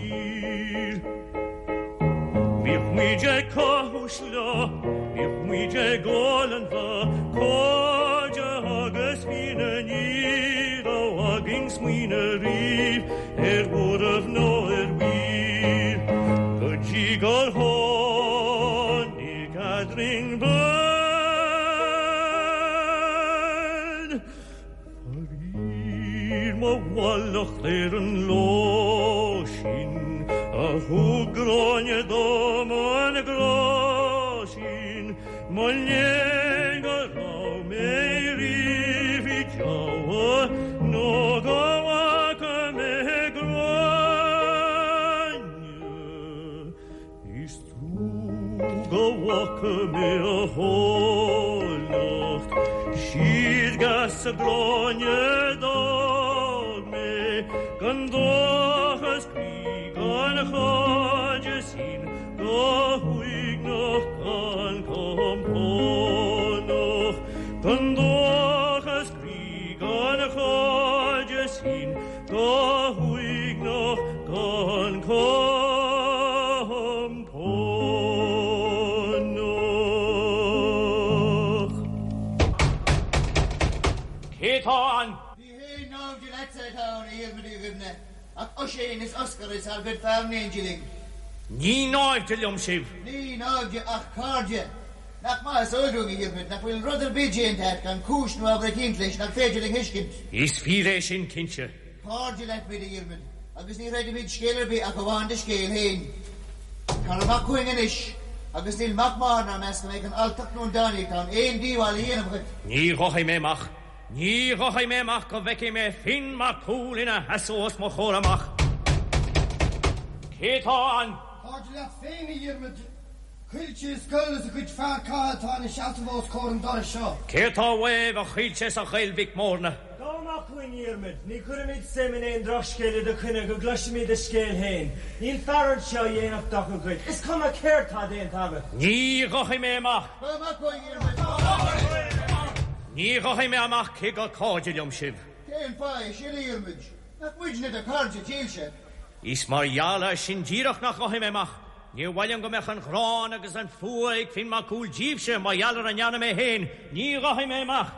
Bhíodh muid ag caitheamh sleá, bhíodh muid ag ól an bha, cairde agus fianna ní raibh againn smaoineamh riamh ar bhuaireamh ná ar mhaoir. Go dtí gur tháinig eadrainn bean. Faraor mo mhallacht ar an lá sin a thug Gráinne dom an grá sin, mo léan go raibh mé riamh i dteannta nó go bhfaca mé Gráinne. Is trua go bhfaca mé a háilleacht, Siar sa Ghráinne d'fhág mé, gan dóchas croí gan chairdeas fhinn, go huaigneach gan compónach, gan dóchas croí gan chairdeas fhinn, go huaigneach gan compónach. Cé tá ann? Ní haon naimhde leatsa atá ann, a Dhiarmaid Uí Dhuibhne, ach Oisín is Oscar is ár gcuid fear in éindí linn. Ní naimhde liom sibh. Ní naimhde ach cairde. Nach maith is eol dúinn, a Dhiarmaid, nach bhfuil rud ar bith déanta agat gan cúis nó ábhar eicínt leis nach féidir linn thuiscint. Is fíor é sin, cinnte. Cairde leat muid, a Dhiarmaid, agus ní chreidfimid scéal ar bith ach amháin do scéal féin. Tar amach chugainn anois, agus níl mac máthar 'nár measc go mbeidh an alltacht nó an dánaíocht ann aon díobháil a dhéanamh dhuit. Ní ghabhfaidh mé amach. Ní ghabhfaidh mé amach go bhfeicfidh mé Finn Mac Cumhaill ina sheasamh os mo chomhair amach. Cé tá ann? Cairde leat féin, a Dhiarmaid. Caoilte is Goll is a gcuid fear catha atá ina seasamh os comhair an dorais seo. Cé atá uaibh, a Chaoilte is a Ghoill Mhic Mórna? Gabh amach chugainn, a Dhiarmaid. Ní chuirfimid suim in aon drochscéal i do choinne go gcloisfimid do scéal féin. Níl fear anseo a dhéanfadh dochar dhuit, is cuma céard tá déanta agat. Ní ghabhfaidh mé amach. Gabh amach chugainn, a Dhiarmaid. Ní ghabhfaidh mé amach cé gur cairde liom sibh. Cén fáth é sin, a Dhiarmaid? Nach muidne do chairde dílse? Is mar gheall air sin díreach nach ghabhfaidh mé amach. Níor mhaith liom go mbeadh an ghráin agus an fuath ag Finn Mac Cumhaill díbhse mar gheall ar a ndearna mé féin. Ní ghabhfaidh mé amach.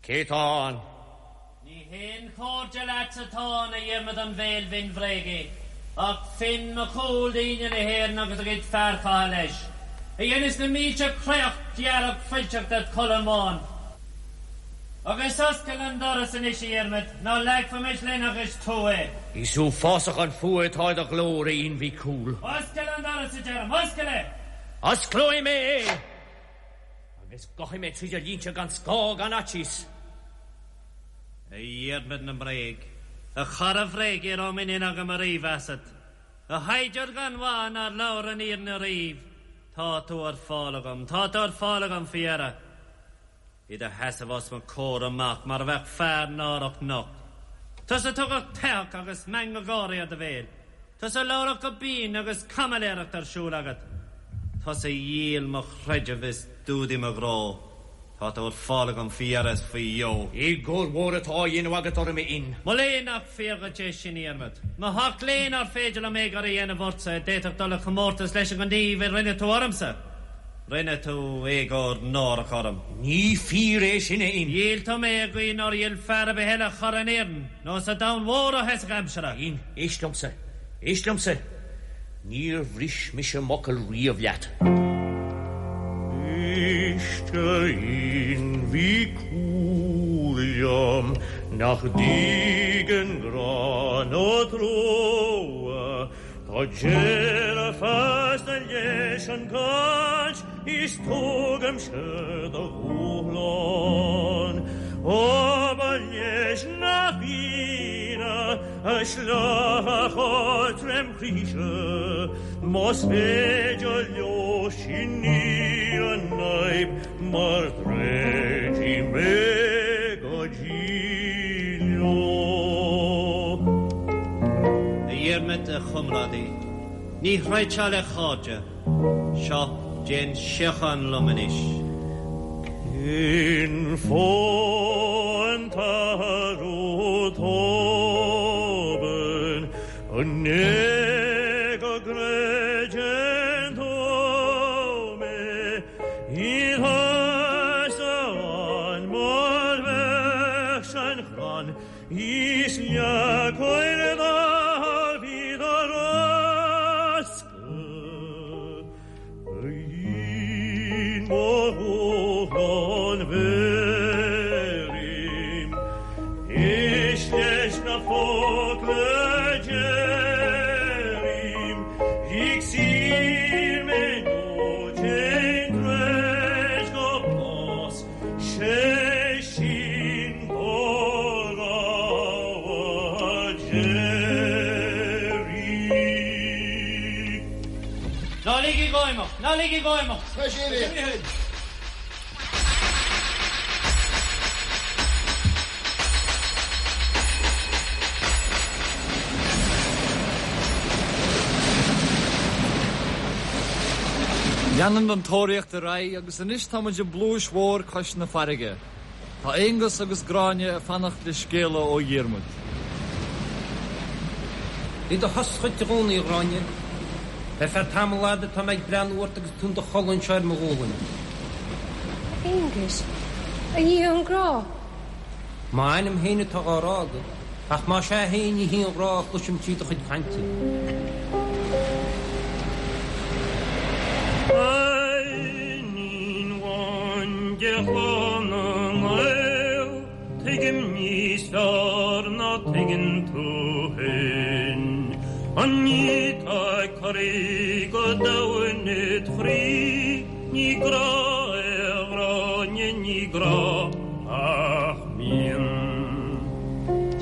Cé tá ann? Ní haon chairde leat atá ann, a Dhiarmaid an bhéil bhinn bhréagaigh, ach Finn Mac Cumhaill d'fhine na hÉireann agus a gcuid fear catha leis, a dheineas na mílte créacht dhearg fuilteach ded cholainn bhán. Agus oscail an doras anois, a Dhiarmaid, nó leagfaimis linn agus tú é. Is uafásach an fuath atá i do ghlór, a Fhinn Mhic Cumhaill. Oscail an doras, a deirim, oscail é! Osclóidh mé é! Agus gabhfaidh mé tríd do línte gan scáth gan fhaitíos. A Dhiarmaid na mbréag, a chara bhréige a raibh muinín agam ariamh asat, a shaighdiúir gan mhaith nár labhair an fhírinne ariamh, tá tú ar fáil agam, tá tú ar fáil agam faoi dheireadh. I do sheasamh os mo chomhair amach mar a bheadh fear náireach nocht. Tusa a tugadh teitheadh agus meangadh gáirí ar do bhéal. Tusa a labhradh go binn agus caimiléireacht ar siúl agat. Tusa a dhíol mo chreideamh is d'fhuadaigh mo ghrá. Tá tú ar fáil agam faoi dheireadh is faoi dheo. Éagóir mhór atá á dhéanamh agat orm, a Fhinn. Mo léan nach fíor dhuit é sin, a Dhiarmaid. Mo sheacht léan nár féidir liom éagóir a dhéanamh ortsa a d'fhéadfadh dul i chomórtas leis an ngníomh a rinne tú ormsa. Rinne tú éagóir náireach orm. Ní fíor é sin, a Fhinn. Dhíol tú mé i gcaoi nár dhíol fear ar bith eile chara in Éirinn nó sa domhan mhór ó thosach aimsire. A Fhinn, éist liomsa. Éist liomsa. Níor bhris mise m'fhocal riamh leat. Éist, a Fhinn Mhic Cumhaill liom, nach dtuigeann grá ná trua. Tá deireadh feasta leis an gcaint is tugaimse do dhúshlán. Abair leis na Fianna. A shleacha tromchroíse, más féidir leo sin í an fhadhb mar troidfidh mé go dtí leo. A Dhiarmaid, a chomrádaí, ní throidfeá le cairde. Seo, déan síocháin liom anois. Cén fáth an t-athrú tobann? An é go gcreideann tú mé? Níl tusa ann mar bheadh san chrann is leacair dá bhí do roscadh. Ná ligigí dhó imeacht! Ná ligigí dhó imeacht! Leanann an tóraíocht ar aghaidh agus anois tá muid i bpluais mhór cois na farraige. Tá Aonghus agus Gráinne ag fanacht le scéala ó Dhiarmuid. Bhí do shos dhuit i gcónaí, a Ghráinne. Le feadh tamall fhada tá mé ag breathnú ort agus tú in do chodladh anseo ar mo ghualainn. A Aonghuis, a Dhia an grá! M'anam féin atá á rá agat, ach más ea féin ní hí an ghrá a chloisim trí do chuid cainte. Iníon amháin de chlann na nGael, tuigim níos fearr ná tuigeann tú féin an ní tá ag corraí go domhain id chroí, ní grá é a Ghráinne, ní grá ach mian.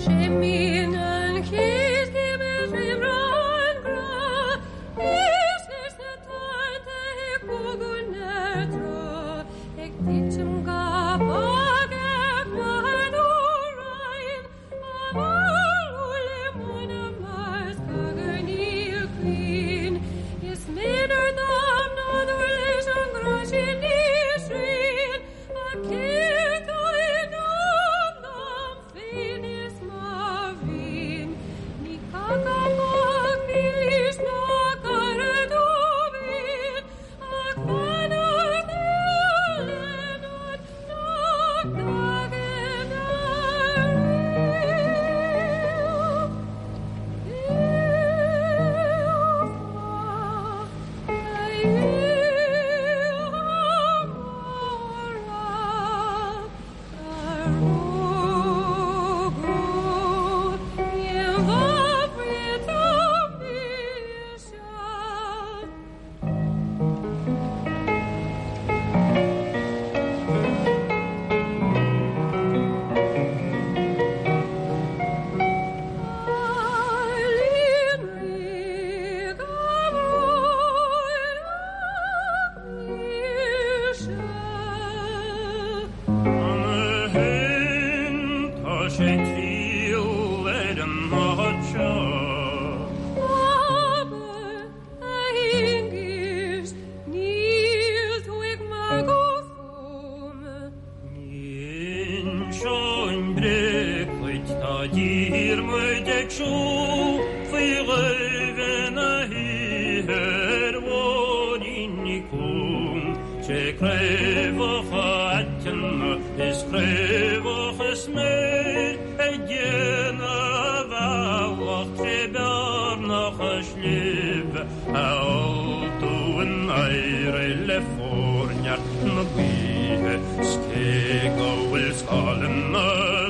Sé mian an chéad chéim ar réimreá an ghrá, is leis na tonnta ag bogadh na trá, ag titim go bog ar chlár nó rainn, á mallú le mona mar scagar níl cruinn. Is méanar dom nádúr leis an ngrá sin níl srian, ach céard tá i ndán dom féin is mo mhian? Ní caca mac milis ná cara dom féin, ach fanacht le nod nach dtagann ariamh. Tá sé triall ar an áit seo. Abair, a Aonghuis, níl tú ag magadh fúm. Ní inseoinn bréag dhuit, tá Diarmuid ag siúl faoi dhoimhe na hoíche ar bhóithríní cúng, tré craobhacha aiteanna is craobhacha sméir ag déanamh a bhealach tré bearnacha sléibhe a fholtóinn éirigh le forneart na gaoithe 's cé go bhfuil scáileanna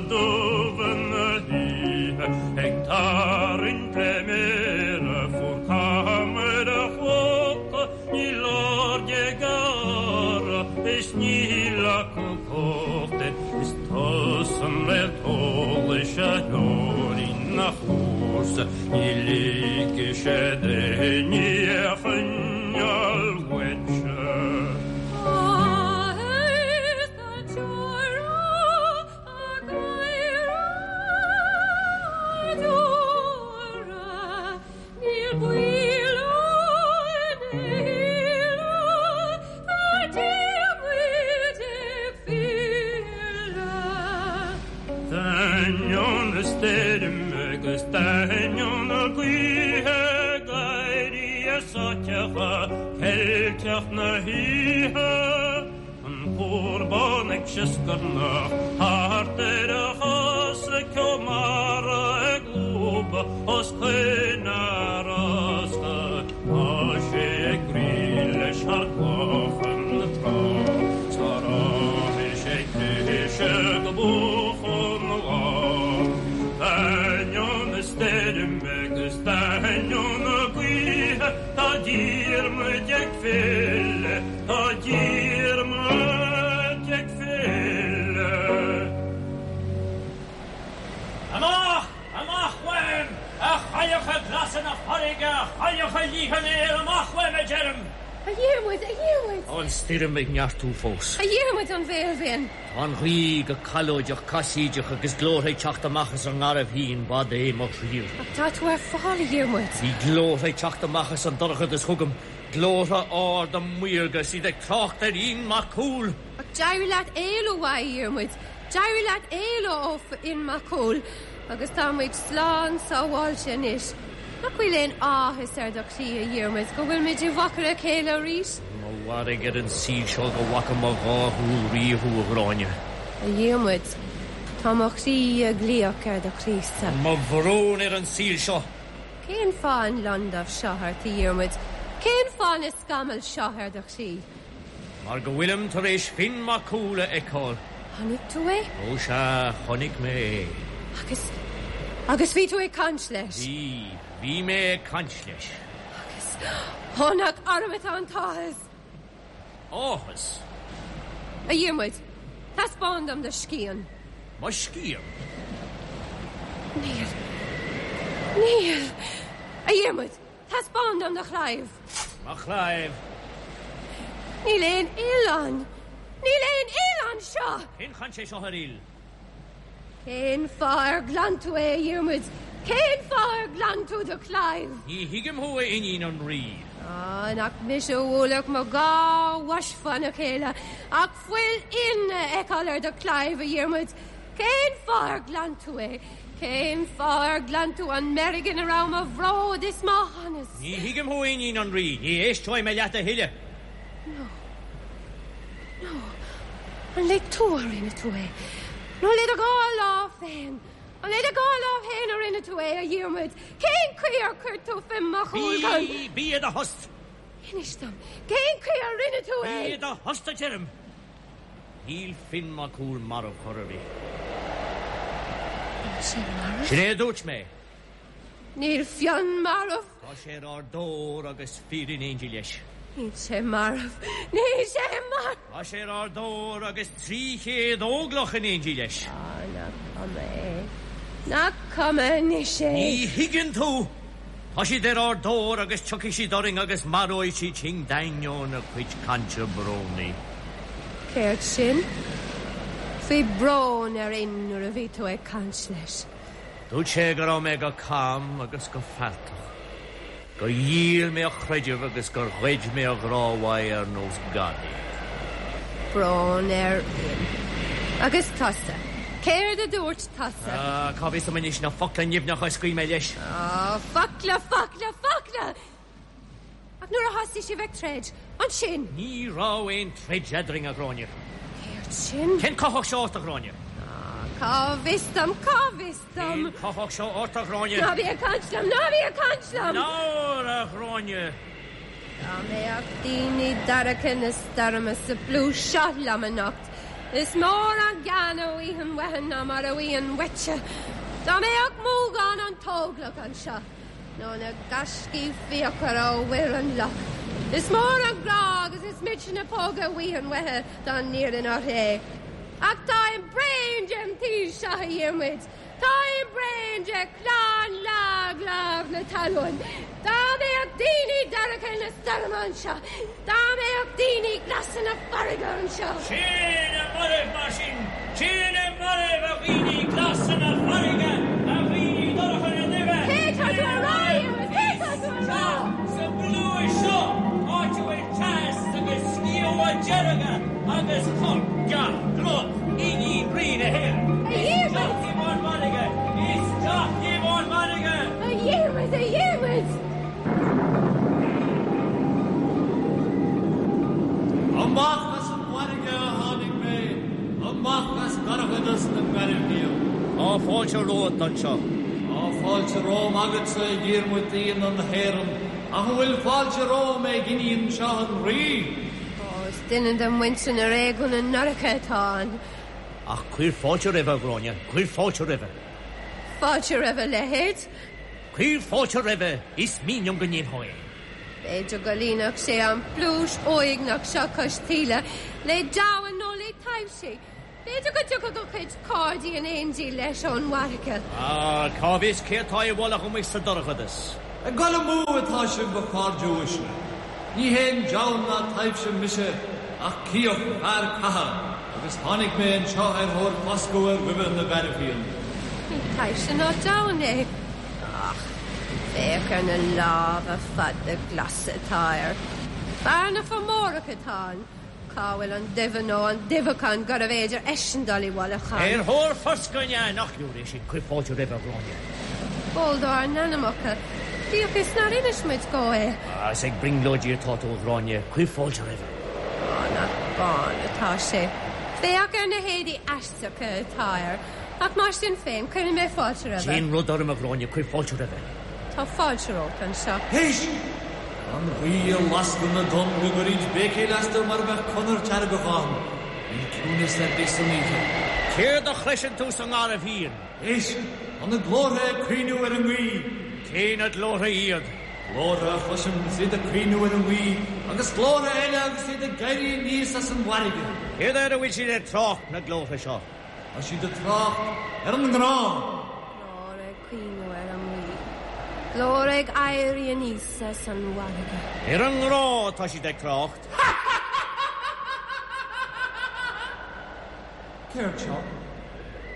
dubha na hoíche ag tarraingt le méara fuar cam ar a chlóca níl aird ag gearradh is níl acu cumhacht air is tusa an réalt eolais a threoraíonn a chúrsa. fós, ní ligfidh sé d'éinne é a choinneáil uaitse. D'ainneoin na stoirme agus d'ainneoin na gaoithe gáirí sáiteacha ceilteach na hoíche, an cúr bán ag sioscarnach thart ar a chosa, ceo mara ag lúbadh os coinne a rosca, tá sé ag rith leis thar clocha na trá, 's nár fhágfaidh sé cliseadh go buachan an lá. D'ainneoin na stoirme agus d'ainneoin na gaoithe, tá Diarmuid ag filleadh, tá Diarmuid ag filleadh. Amach! Amach uaim, a chailleacha glasa na farraige, a chailleacha liatha an aeir, amach uaim, a deirim! A Dhiarmuid, a Dhiarmuid! Tá an stoirm ag neartú fós. A Dhiarmuid an bhéil bhinn! Tá an ghaoth go callóideach casaoideach agus glórtha ag teacht amach as an ngarbhshíon, b'fhada é mo thriall. Ach tá tú ar fáil, a Dhiarmuid. Bhí glórtha ag teacht amach as an dorchadas chugam, glórtha arda maorga is iad ag trácht ar Fhionn Mac Cumhaill. Ach d'éirigh leat éalú uaidh, a Dhiarmuid. D'éirigh leat éalú ó Fhionn Mac Cumhaill agus tá muid slán sábháilte anois. Nach bhfuil aon áthas ar do chroí, a Dhiarmuid, go bhfuil muid i bhfochair a chéile arís? Mo mhairg ar an saol seo go bhfaca mo dhá shúil riamh thú, a Ghráinne. A Dhiarmuid, tá mo chroí ag glaoch ar do chroí-sa. Mo bhrón ar an saol seo! Cén fáth an londubh seo ort, a Dhiarmuid? Cén fáth na scamaill seo ar do chroí? Mar go bhfuilim tar éis Finn Mac Cumhaill a fheiceáil. Chonaic tú é? Ó sea, chonaic mé é. Agus, agus bhí tú ag caint leis? Bhí, bhí mé ag caint leis. Agus, ó nach orm atá an t-áthas! Áthas? A Dhiarmuid, taispeáin dom do scian. Mo scian? Níl. Níl. A Dhiarmuid, Taispeáin dom do chlaíomh. Mo chlaíomh. Níl aon fhuil ann. Níl aon fhuil anseo! Cén chaint é seo ar fhuil? Cén fáth ar ghlan tú é, a Dhiarmuid? Cén fáth ar ghlan tú do chlaíomh? Ní thuigim thú, a iníon an rí. Á, nach mise a bhuailfeadh mo dhá bhois fána chéile ach fuil Fhinn a fheiceáil ar do chlaíomh, a Dhiarmuid. Cén fáth ar ghlan tú é? Cén fáth ar ghlan tú an meirg ina raibh mo bhród is mo shonas? Ní thuigim thú, a iníon an rí. Ní éisteoidh mé leat a thuilleadh. Nó. Nó. An le tua a rinne tú é? Nó le do dhá lámh féin? An le do dhá lámh féin a rinne tú é, a Dhiarmuid? Cén chaoi ar chuir tú Fionn Mac Cumhaill chun. Bí, bí i do thost! Inis dom, cén chaoi ar rinne tú é? Bí i do thost, a deirim! Níl Finn Mac Cumhaill marbh chor ar bith. Níl sé marbh? Sin é a dúirt mé. Níl Fionn marbh. Tá sé ar ár dtóir agus fir in éindí leis. Níl sé marbh. Níl sé marbh. Tá sé ar ár dtóir agus 300 óglach in éindí leis. Á, nach cuma é. Nach cuma anois é. Ní thuigeann tú. Tá siad ar ár dtóir agus tiocfaidh siad orainn agus maróidh siad sinn d'ainneoin a cuid cainte brónaí. Céard sin? Bhí brón ar Fhionn nuair a bhí tú ag caint leis. Dúirt sé go raibh mé go cam agus go fealltach, gur dhíol mé a chreideamh agus gur ghoid mé a ghrá uaidh ar nós gadaí. Brón ar Fhionn. Agus tusa? Céard a dúirt tusa? Ah, cá bhfios dom anois na focla nimhneacha a scaoil mé leis. Ah, focla, focla, focla! Ach nuair a thosaigh sibh ag troid, ansin? Ní raibh aon troid eadrainn, a Ghráinne. Céard sin? Cén cuthach seo ort, a Ghráinne? Ah, cá bhfios dom, cá bhfios dom? Cén cuthach seo ort, a Ghráinne? Ná bí ag caint liom, ná bí ag caint liom! Labhair, a Ghráinne! Dá mbeadh daoine dorcha na stoirme sa bpluais seo liom anocht, is mór an gean a bhfaighinn uathu ná mar a bhfaighinn uaitse. Dá mbeadh Múgán an t-óglach anseo, nó na gaiscígh fíochmhara ó Mhuir an Loch, is mór an grá agus is milse na póga a bhfaighinn uathu dá n-iarrfainn orthu é. Ach táim bréan den tsaol seo, a Dhiarmuid. Táim bréan de chlann lag. na talún! Dá mbeadh daoine dorcha na stoirme anseo! Dá mbeadh daoine glasa na farraige anseo! Sin é mairbh mar sin! Sin é mairbh, a dhaoine glasa na farraige, a dhaoine dorcha na duibhe! Cé tá tú a rá, a Dhiarmuid? Cé tá tú a rá? Sa bpluais seo, áit a bhfuil teas agus sciamha dearga agus corp gach grod iníon Rí na hÉireann. A Dhiarmuid! Isteach libh ón bhfarraige! Isteach libh ón bhfarraige! A Dhiarmuid, a Dhiarmuid! Amach as an bhfarraige a tháinig mé, amach as dorchadas na nGairbhfhiann. Tá fáilte romhat anseo. Tá fáilte romham agatsa, a Dhiarmuid d'Fhianna na hÉireann, ach an bhfuil fáilte romham ag iníon seo an Rí? Ó, is duine de mhuintir na réigiúna ndorcha atá ann. Ach cuir fáilte roimhe, a Ghráinne, cuir fáilte roimhe. Fáilte roimh a leithéid. Cuir fáilte roimhe, is mian liom go ndéanfá é. B'fhéidir go líonfadh sé an phluais uaigneach seo cois taoille le deamhain nó le taibhsí. B'fhéidir go dtiocfadh a chuid cairde in éindí leis ón bhfarraige. Ah, cá bhfios cé atá i bhfolach amuigh sa dorchadas? Ag dul amú atá sibh, a chairde uaisle. Ní haon deamhan ná taibhse mise ach Cíoch, fear catha, agus tháinig mé anseo ar thóir foscadh ar dhuibhe na nGairbhfhiann. Ní taibhse ná deamhan é. Ach féach ar na lámha fada glasa atá air. Fear na Fomórach atá ann. Cá bhfuil an duibhe nó an duibheachán gurbh fhéidir eisean dul i bhfolach ann? Ar thóir foscaidh an ea? Nach leor é sin? Cuir fáilte roimhe, a Ghráinne. Ól dár n-anamacha, bíodh is nár inis muid dhó é. Ah, is ag brionglóidí atá tú, a Ghráinne. Cuir fáilte roimhe. Á, nach bán atá sé. Féach ar na héadaí aisteacha atá air. Ach mar sin féin, cuirfidh mé fáilte roimhe. Déan rud orm, a Ghráinne, cuir fáilte roimhe. Tá fáilte romhat anseo. Éist! An ghaoth ag lascadh na dtonn go gcuirid béicíl astu mar a bheadh conair seargach ann. Níl ciúnas ar bith san oíche. Céard a chloiseann tú sa nGarbhfhiann? Éist! Tá na glórtha ag caoineadh ar an ngaoth. Cé na glórtha iad? Glórtha a chloisim is iad ag caoineadh ar an ngaoth agus glórtha eile agus iad ag éirí aníos as an bhfarraige. Céard air a bhfuil siad ag trácht, na glórtha seo? Tá siad ag trácht ar an ngrá. Glór ag caoineadh ar an ngaoth. Glór ag éirí aníos as an bhfarraige. Ar an ngrá atá siad ag trácht. Céard seo?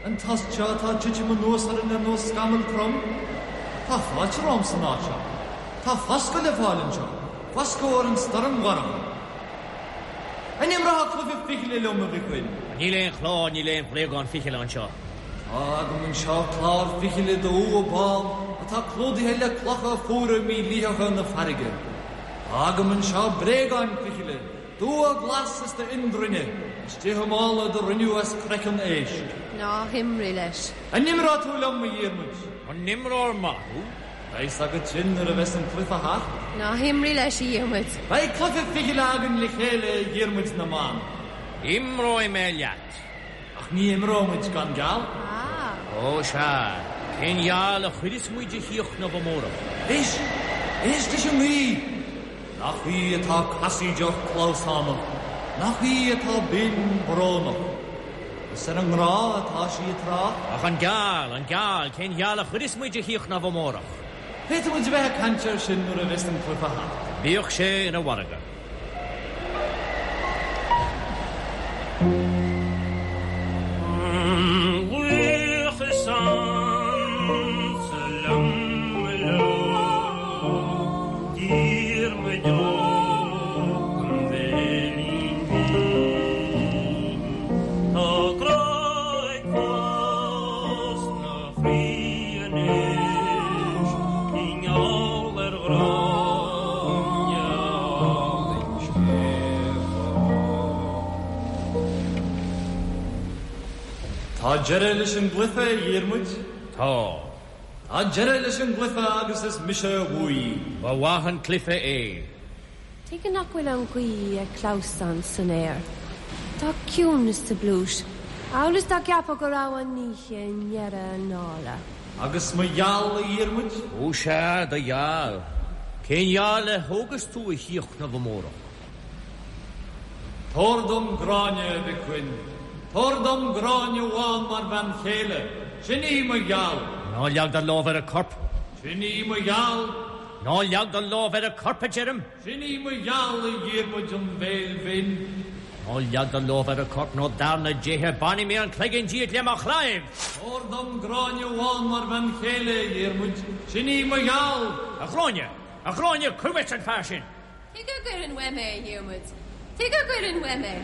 An tost seo atá ag titim anuas orainn ar nós scamall trom? Tá fáilte romham san áit seo. Tá foscadh le fáil anseo, foscadh ar an stoirm dhorcha. An imreofá cluiche fichille liom, a Mhic Fhinn? Níl aon chlár, níl aon bhréagán fichille anseo. Tá agam anseo clár fichille d'umha bán atá clúdaithe le clocha fuara mílítheacha na farraige. Tá agam anseo bréagáin fichille d'umha glas is d'fhionndruinne, istigh i mála do rinneadh as craiceann éisc. Ná himrigh leis. An imreoidh tú liom, a Dhiarmuid? An imreoir maith thú? Beidh 's agat sin nuair a bheas an cluiche thart. Ná himrigh leis, a Dhiarmuid. Beidh cluiche fichille againn le chéile, a Dhiarmuid na mBan. Imreoidh mé leat. Ach ní imreoimid gan geall. Ah. Ó, sea. Cén gheall a chuireas muid a Shiochnamh amárach? Éist! Éist leis an ngaoth! Nach í atá casaoideach clamhsánach, nach í atá binn brónach. Is ar an ngrá atá sí ag trácht. Ach an geall, an geall, cén gheall a chuireas muid a Shiochnamh amárach? Féadfaidh muid a bheith ag caint air sin nuair a bheas an cluiche thart. Bíodh sé ina mhargadh. An ghaoth is ansa liom mo leo, Diarmuid Óg an Bhéilín Bhinn. Tá grá ag fás 'na chroí anois i ngeall ar Ghráinne álainn Sceimh. Tá deireadh leis an gcluiche, a Dhiarmuid. Tá. Tá deireadh leis an gcluiche agus is mise a bhuaigh. Ba mhaith an cluiche é. Tuige nach bhfuil an ghaoth ag clamhsán san aer? Tá ciúnas sa bpluais, amhail is dá gceapfá go raibh an oíche i ndeireadh a dála. Agus mo gheall, a Dhiarmuid? Ó sea, do gheall. Cén gheall a thógas tú a Shiochnamh amárach? Tabhair dom Gráinne, a Mhic Fhinn. Tabhair dom Gráinne Bhán mar bhean chéile. Sin í mo gheall. Ná leag do lámh ar a corp. Sin í mo gheal. Ná leag do lámh ar a corp, a deirim. Sin í mo gheal, a Dhiarmuid an Bhéil Bhinn. Ná leag do lámh ar a corp nó dar na déithe bainfidh mé an cloigeann díot le mo chlaíomh! Tabhair dom Gráinne Bhán mar bhean chéile, a Dhiarmuid. Sin í mo gheal. A Ghráinne! A Ghráinne, cuir uait an fear sin! Tuige a gcuirfinn uaim é, a Dhiarmuid? Tuige a gcuirfinn uaim é?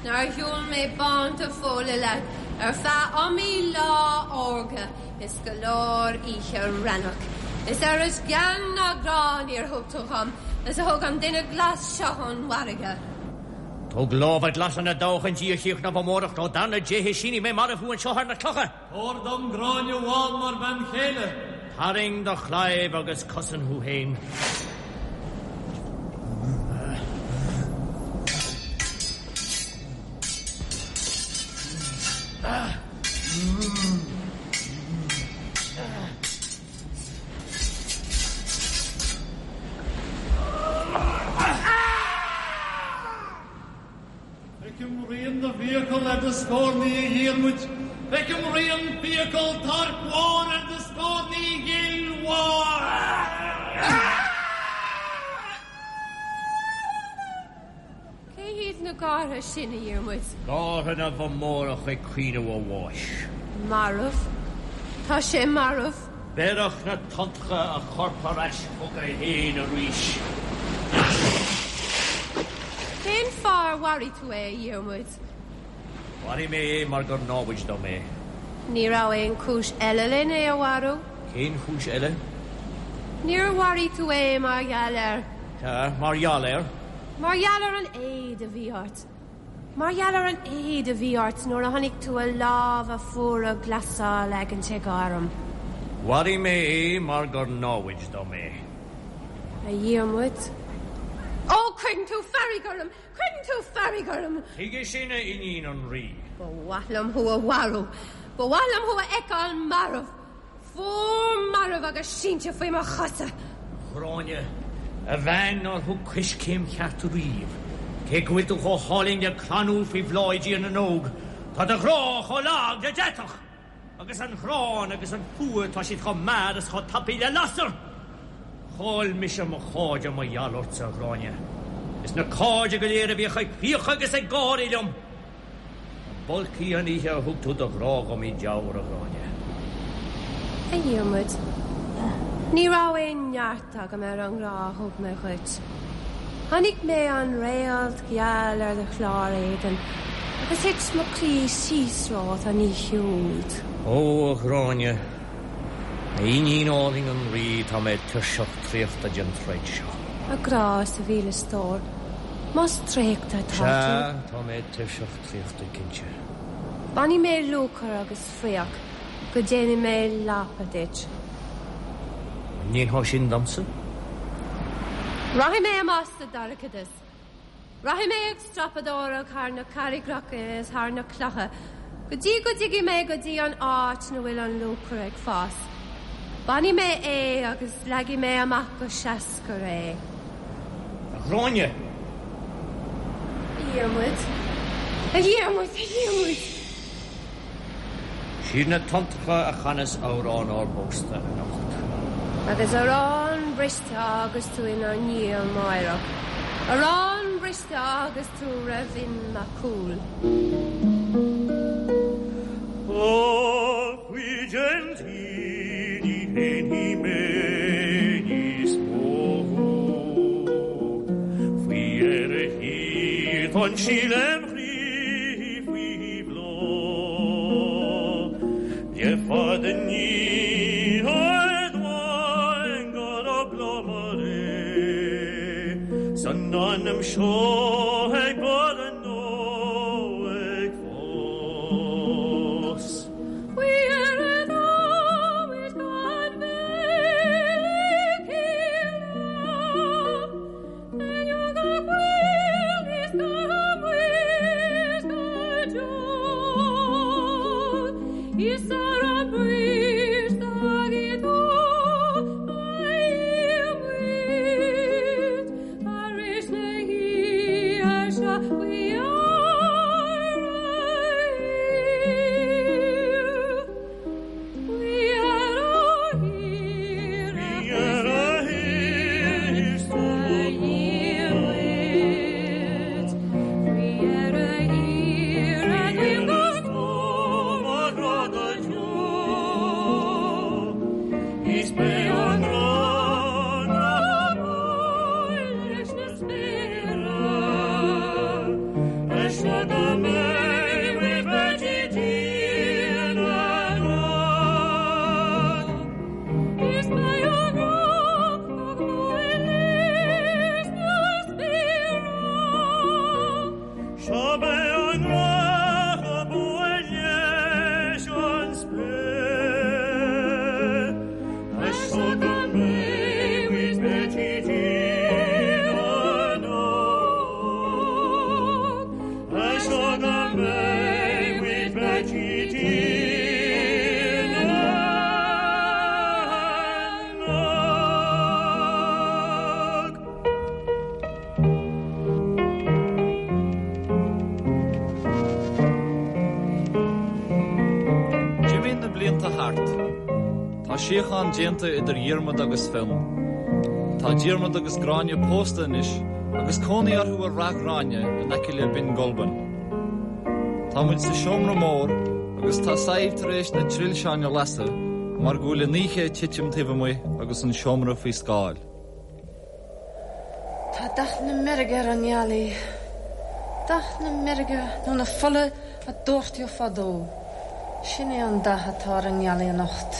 Nár shiúil mé bánta fóla leat ar feadh iomaí lá órga is go leor oíche raithneach, is oiread gean ná grá níor thug tú dhom is a thug an duine glas seo ón bhfarraige. Tóg lámha glasa na dtoghchan di a chríochnamh amárach nó dar na déithe sínfidh mé marbh thú anseo ar na clocha! Tabhair dom Gráinne Bhán mar bhean chéile. Tarraing do chlaíomh agus cosain thú féin. Feicim rian na bhfiacal ar do scornaí, a Dhiarmuid, feicim rian fiacal toirc mhóir ar do scornaí ghil mhór. Cé hiad na gártha sin, a Dhiarmuid? Gártha na bhFomórach ag caoineadh a bháis. Marbh. Tá sé marbh. Bhéarfadh na tonntacha a chorp ar ais chuige féin arís. Cén fáth ar mharaigh tú é, a Dhiarmuid? Mharaigh mé é mar gur námhaid dom é. Ní raibh aon chúis eile len é a mharú. Cén chúis eile? Níor mharaigh tú é mar gheall ar. Sea, mar gheall ar. Mar gheall ar an éad a bhí ort. Mar gheall ar an éad a bhí ort nuair a chonaic tú a lámha fuara glasa á leagaint ag arm. Mharaigh mé é mar gur námhaid dom é. A Dhiarmuid. Ó, cuireann tú fearg orm! Cuireann tú fearg orm! Tuige sin, a iníon an Rí? Ba mhaith liom thú a mharú! Ba mhaith liom thú a fheiceáil marbh! Fuar marbh agus sínte faoi mo chosa. A Ghráinne, a bhean nár thug coiscéim cheart riamh, cé go bhfuil tú chomh hálainn le crann úll faoi bhláth i dTír na nÓg, tá do ghrá chomh lag le deatach! Agus an ghráin agus an fuath, tá siad chomh mear is chomh tapaidh le lasair! Chaill mise mo chairde mar gheall ortsa, a Ghráinne, is na cairde go léir a bhíodh ag fiachadh agus ag gáirí liom! B'olc í an oíche a thug tú do ghrá dhom i dTeamhair, a Ghráinne. A Dhiarmuid, ní raibh aon neart agam ar an ngrá a thug mé dhuit. Chonaic mé an réalt gheal ar do chlár éadain agus thit mo chroí síos romhat an oíche úd. Ó, a Ghráinne, a iníon álainn an Rí, tá mé tuirseach traochta den troid seo. A ghrá is a mhíle stór. Más traochta atá tú. Sea, tá mé tuirseach traochta cinnte. Bainfidh mé lúcáir agus fraoch go déanfaidh mé lapa duit. An ndéanfá sin domsa? Rachaidh mé amach sa dorchadas. Rachaidh mé ag strapadóireacht thar na carraigreacha is thar na clocha go dtí go dtiocfaidh mé go dtí an áit 'na bhfuil an lúcáir ag fás. Bainfidh mé é agus leagfaidh mé amach go seascair é. A Ghráinne! A Dhiarmuid! A Dhiarmuid! A Dhiarmuid! Siad na tonntacha a chanas amhrán ár bpósta anocht. Agus arán briste a fhágas tú inár ndiaidh amáireach, arán briste a fhágas tú roimh Fhionn Mac Cumhaill. A chuid den tí ní shéanfaidh mé níos mó thú. Faoi dheireadh thiar d'fhan sí lem chroí faoi bhláth. Le fada ní admhaim go raibh bláth mar é san anam seo ag borradh nó ag fás. síocháin déanta idir Dhiarmaid agus Fionn. Tá Diarmaid agus Gráinne pósta anois agus cónaí orthu i Rath Ghráinne in aice le Binn Gulbain. Tá muid sa seomra mór agus tá Sadhbh tar éis na trilseáin a lasadh mar go bhfuil an oíche ag titim taobh amuigh agus an seomra faoi scáil. Tá dath na meirge ar an ngealaigh, dath na meirge nó na fola a doirteadh fadó. Sin é an dath atá ar an ngealaigh anocht.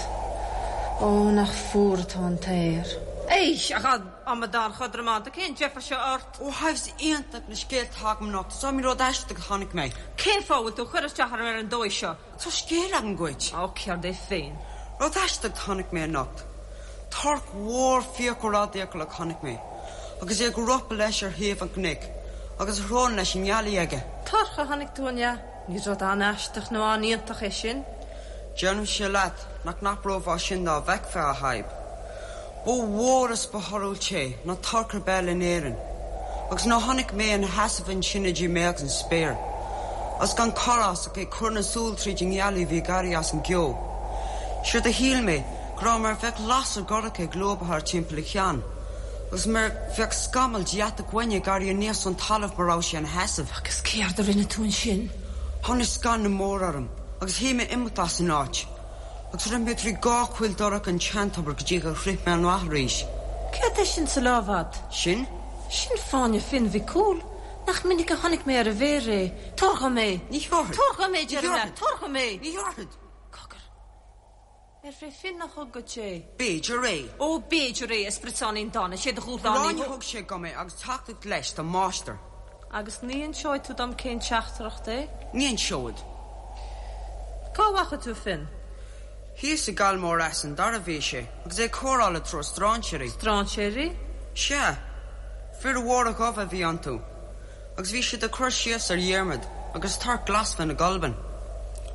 Ó, nach fuar atá an t-aer. Éist, a amadán chodrománta, cén deifir seo ort? Ó, a Shadhbh, is iontach na scéalta atá agam anocht. Is iomaí rud aisteach a chonaic mé. Cén fáth a bhfuil tú ag cur isteach orm ar an dóigh seo? Tá scéal agam dhuit. Ó, céard é féin? Rud aisteach a chonaic mé anocht. Torc mhór fiacail ardfhiacail a chonaic mé, agus é ag ropadh leis ar thaobh an chnoic, agus a shrón leis an ngealaigh aige. Torc a chonaic tú, an ea? Ní rud an-aisteach nó an-iontach é sin. Deirimse leat nach n-abrófá sin dá bhfeicfeá, a Shadhb. Ba mhór is ba thorthúil é ná torc ar bith eile in Éirinn, agus nuair a chonaic mé ina sheasamh ansin idir mé agus an spéir, agus gan cor as ach é ag cur na súl tríd an ngealaigh a bhí ag éirí as an gceo, séard a shíl mé go raibh mar a bheadh lasair dhorcha ag lúbadh thart timpeall a cheann, agus mar a bheadh scamall de dheatach uaine ag éirí aníos ón talamh mar raibh sé ina sheasamh. Agus céard a rinne tú ansin? Tháinig scanradh mór orm, agus shíl mé imeacht as an áit. Agus rith mé trí gach coill dorcha an tseantobair go dtí gur shroich mé an rath arís. Céard é sin sa lámh a'd? Sin? Sin fáinne Finn Mhic Cumhaill. Nach minic a chonaic mé ar a mhéir é. Tabhair dhom é. Ní thabharfad. Tabhair dhom é, deirim leat. Tabhair dhom é. Ní thabharfad. Cogar. Arbh é Finn a thug dhuit é? B'fhéidir é. Ó, b'fhéidir é, a spriotsáinín dána. Sé do dhúshlán é. Gráinne a thug sé dhom é agus teachtaireacht leis dá máistir. Agus ní inseoidh tú dom cén teachtaireacht é? Ní inseoidh. Cá bhfaca tú Finn? Thíos i gCoill Mhór Eas an Dara a bhí sé, agus é ag comhrá le triúr stráinséirí. Stráinséirí? Sea. Fir mhóra dhubha a bhí iontu, agus bhí siad ag cur síos ar Dhiarmaid agus torc glas Fhinn Mhic Gulbain.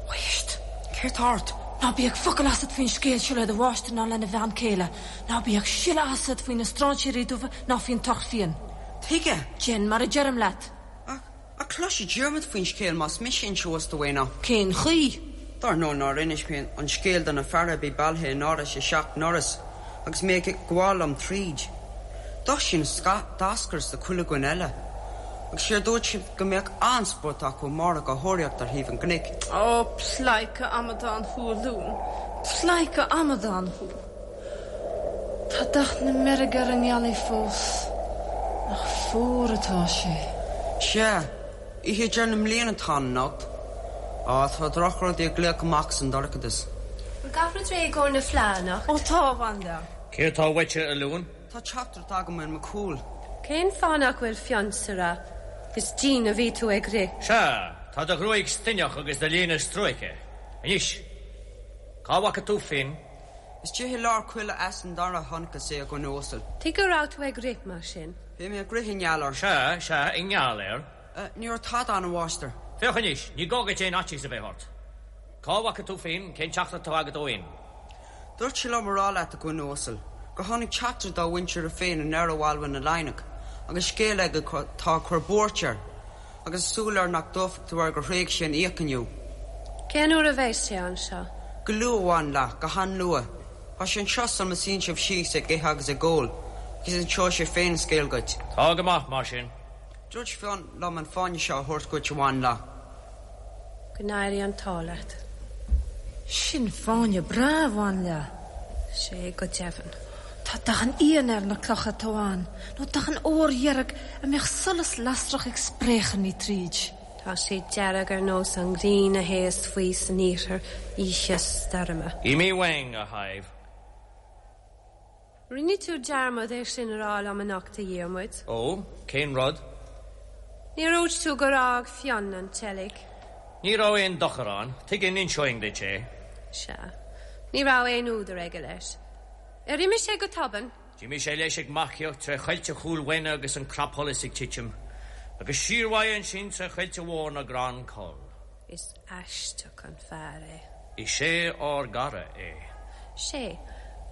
Éist! Céard tá ort? Ná bíodh focal asat faoin scéal seo le do mháistir ná lena bhean chéile. Ná bíodh siolla asat faoi na stráinséirí dubha ná faoin torc fiain. Tuige? Déan mar a deirim leat. Ach, ach cloisfidh Diarmaid faoin scéal más mise a inseos dó é ná. Cén chaoi? Dar ndóigh nár inis mé an scéal do na feara a bhí bailithe in Áras a Seacht nDoras agus mé ag gabháil liom tríd. D'Oisín d'eascras do chuile dhuine eile. Agus séard dúirt siad go mbeadh an-spórt acu amárach á thóraíocht ar thaobh an gcnoic. Ó, pleidhce amadán thú, a Luain. Pleidhce amadán thú. Tá dath na meirge ar an ngealaigh fós. Nach fuar atá sé. Sea, oíche deireadh na mbliana atá ann anocht. Á, tá drochrudaí ag glaoch amach as an dorchadas. Bhfuil gach rud réidh i gcomhair na fleá anocht? Ó tá, a bhanlia. Céard tá uaitse, a Luain? Tá teachtaireacht agam ó Fhionn Mac Cumhaill. Cén fáth nach bhfuil Fionn sa rath? Is dian a bhí tú ag rith. Sea, tá do ghruaig stuinneach agus do léine stróicthe. Anois, cá bhfaca tú Finn? Istigh i lár coille Eas an Dara a chonacthas é, a dhuine uasail. Tuige go raibh tú ag rith mar sin? Bhí mé ag rith i ngeall air. Sea, sea, i ngeall air. Ní raibh tada ann, a mháistir. Féach anois, ní gá duit aon fhaitíos a bheith ort. Cá bhfaca tú Finn? Cén teachtaireacht atá agat ó Fhinn? Dúirt sé liom a rá leat, a dhuine uasail, gur tháinig teachtaire dá mhuintir féin anoir ó Almhain na Laighneach, agus scéal aige atá ag cur buairt air, agus súil air nach dtógfaidh tú air gur thréig sé an fhiach inniu. Cén uair a bheas sé anseo? Go luath, a bhanlia, go han-luath. Tá sé anseo sula suíonn sibh síos ag ithe agus ag ól, agus inseoidh sé féin an scéal dhuit. Tá go maith, mar sin. Dúirt Fionn liom an fáinne seo a thabhairt dhuit, a bhanlia. Go n-éirí an t-ádh leat. Sin fáinne breá, a bhanlia. Sé go deimhin. Tá dath an fhíona ar na clocha atá ann, nó dath an óir dheirg a mbeadh solas lasrach ag spréacharnaigh tríd. Tá sé dearg ar nós an ghrian a théas faoi san iarthar oíche stoirme. Imigh uainn, a Shadhbh. Rinne tú dearmad é sin a rá liom anocht, a Dhiarmuid. Ó, cén rud? Níor dhúirt tú gur fhág Fionn an tseilg. Ní raibh aon dochar ann. Tuige a n-inseoinn duit é? Sea. Ní raibh aon údar aige leis. Ar imigh sé go tobann? D'imigh sé leis ag marcaíocht tré choillte Chúil Mhaine agus an clapsholas ag titim, agus siar uaidh ansin tré choillte mhór na gCrann Coll. Is aisteach an fear é. Is é ár gcara é. Sé.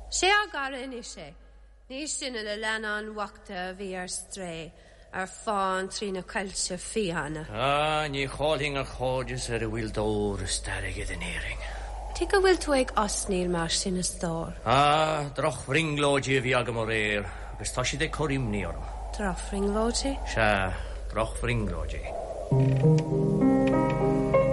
Sé ár gcara anois é. Ní sinne na leannáin bhochta a bhí ar strae, ar fán trí na coillte fiáine. Ah, ní chaillfinn a chairdeas ar a bhfuil d'ór is d'airgead in Éirinn. Tuige a bhfuil tú ag osnaíl mar sin, a stór? Ah, drochbhrionglóidí a bhí agam aréir agus tá siad ag cur imní orm. Drochbhrionglóidí? Sea, drochbhrionglóidí.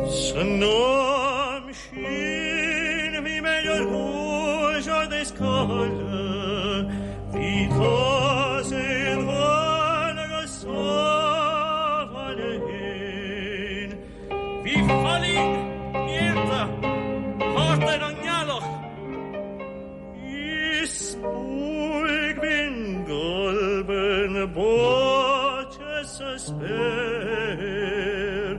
San am sin bhí mé ar thús is codladh, bhí tusa im bhean agus sábháil fhéin. Bhí fallaing néalta thart ar an ngealach. Is buaidh binn golben báite sa spéir.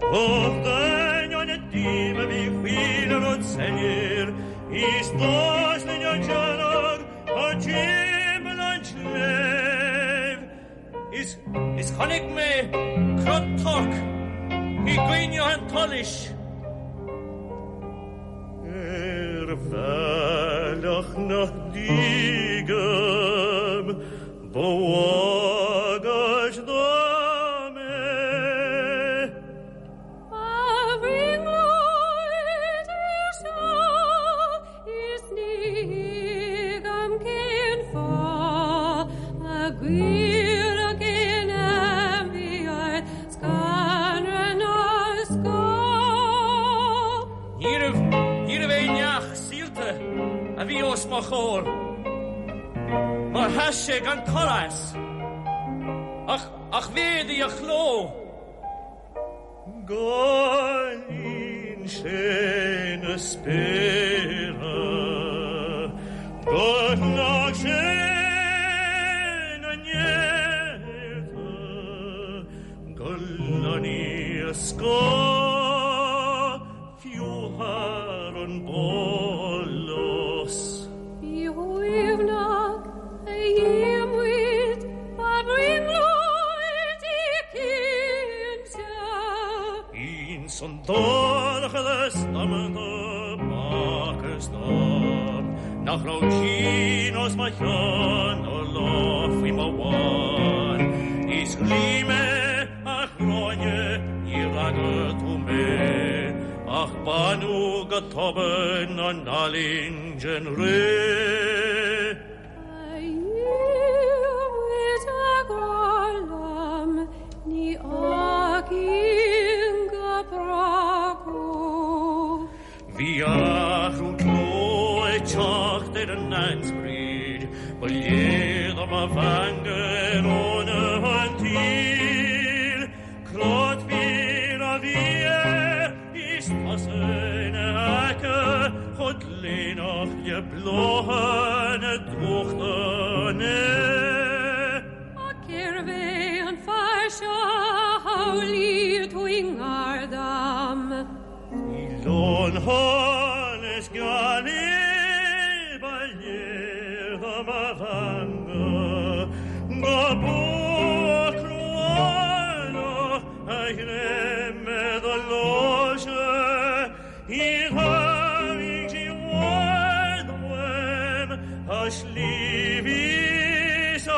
Och d'ainneoin na díoma bhí chuile rud soiléir, is d'fhás linn an dearg thar timpeall an tsléibh. Is is chonaic mé crot toirc i gcoinne an tsolais. Ar bhealach nach dtuigim ba bhagairt dom é. Ba bhrionglóid é seo is ní thuigim cén fáth a gcuirfeadh aon ainmhí ort scanradh ná scáth. Níorbh, níorbh aon neach saolta a bhí os mo chomhair, mar sheas sé gan cor as, ach, ach mhéadaigh a chló. Gur líon sé na spéartha, gur shlog sé na néalta, gur lonnaigh a scáth fiú thar an bpólás. Bí uaigneach, a Dhiarmuid, ba bhrionglóid í cinnte. Ins an dorchadas damanta b'fhacthas dom nach raibh tine os mo chionn ná lá faoi mo bhonn. Is ghlaoigh mé, a Ghráinne, níor fhreagair tú mé, ach baineadh go tobann an fhallaing den ré. A Dhiarmuid, a ghrá liom, ní fhágfainn go brách thú. Bhí athrú cló ag teacht ar an ainsprid, ba léir dom a mheangadh ar fhónamh an tsaoil. Crot fir a bhí air is tusa ina aice chomh gléineach le bláthanna drúchta. Ach cérbh é an fear seo a shamhlaigh tú i ngar dom? Bhí lon-sholas gealaí ba léir dom a mheangadh go buach cruálach a ghreim ar do láimhse í tharraing sí i bhfad uaim a sliabh is a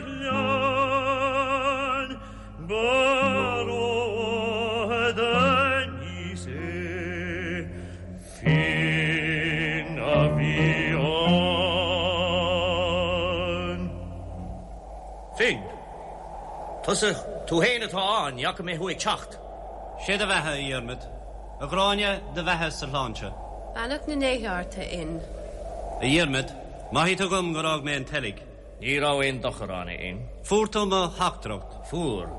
ghleann. Ba rófhada aníos é Finn a bhí ann. Finn. Tusa, tú fhéin atá ann, ní fhaca mé thú ag teacht. Sé do bheatha, a Dhiarmaid. A Ghráinne, do bheatha is do shláinte. Beannacht na ndéithe ort, a Fhinn. A Dhiarmaid, maithfidh tú dhom gur fhág mé an tseilg. Ní raibh aon dochar ann, a Fhinn. Fuair tú mo theachtaireacht. Fuair.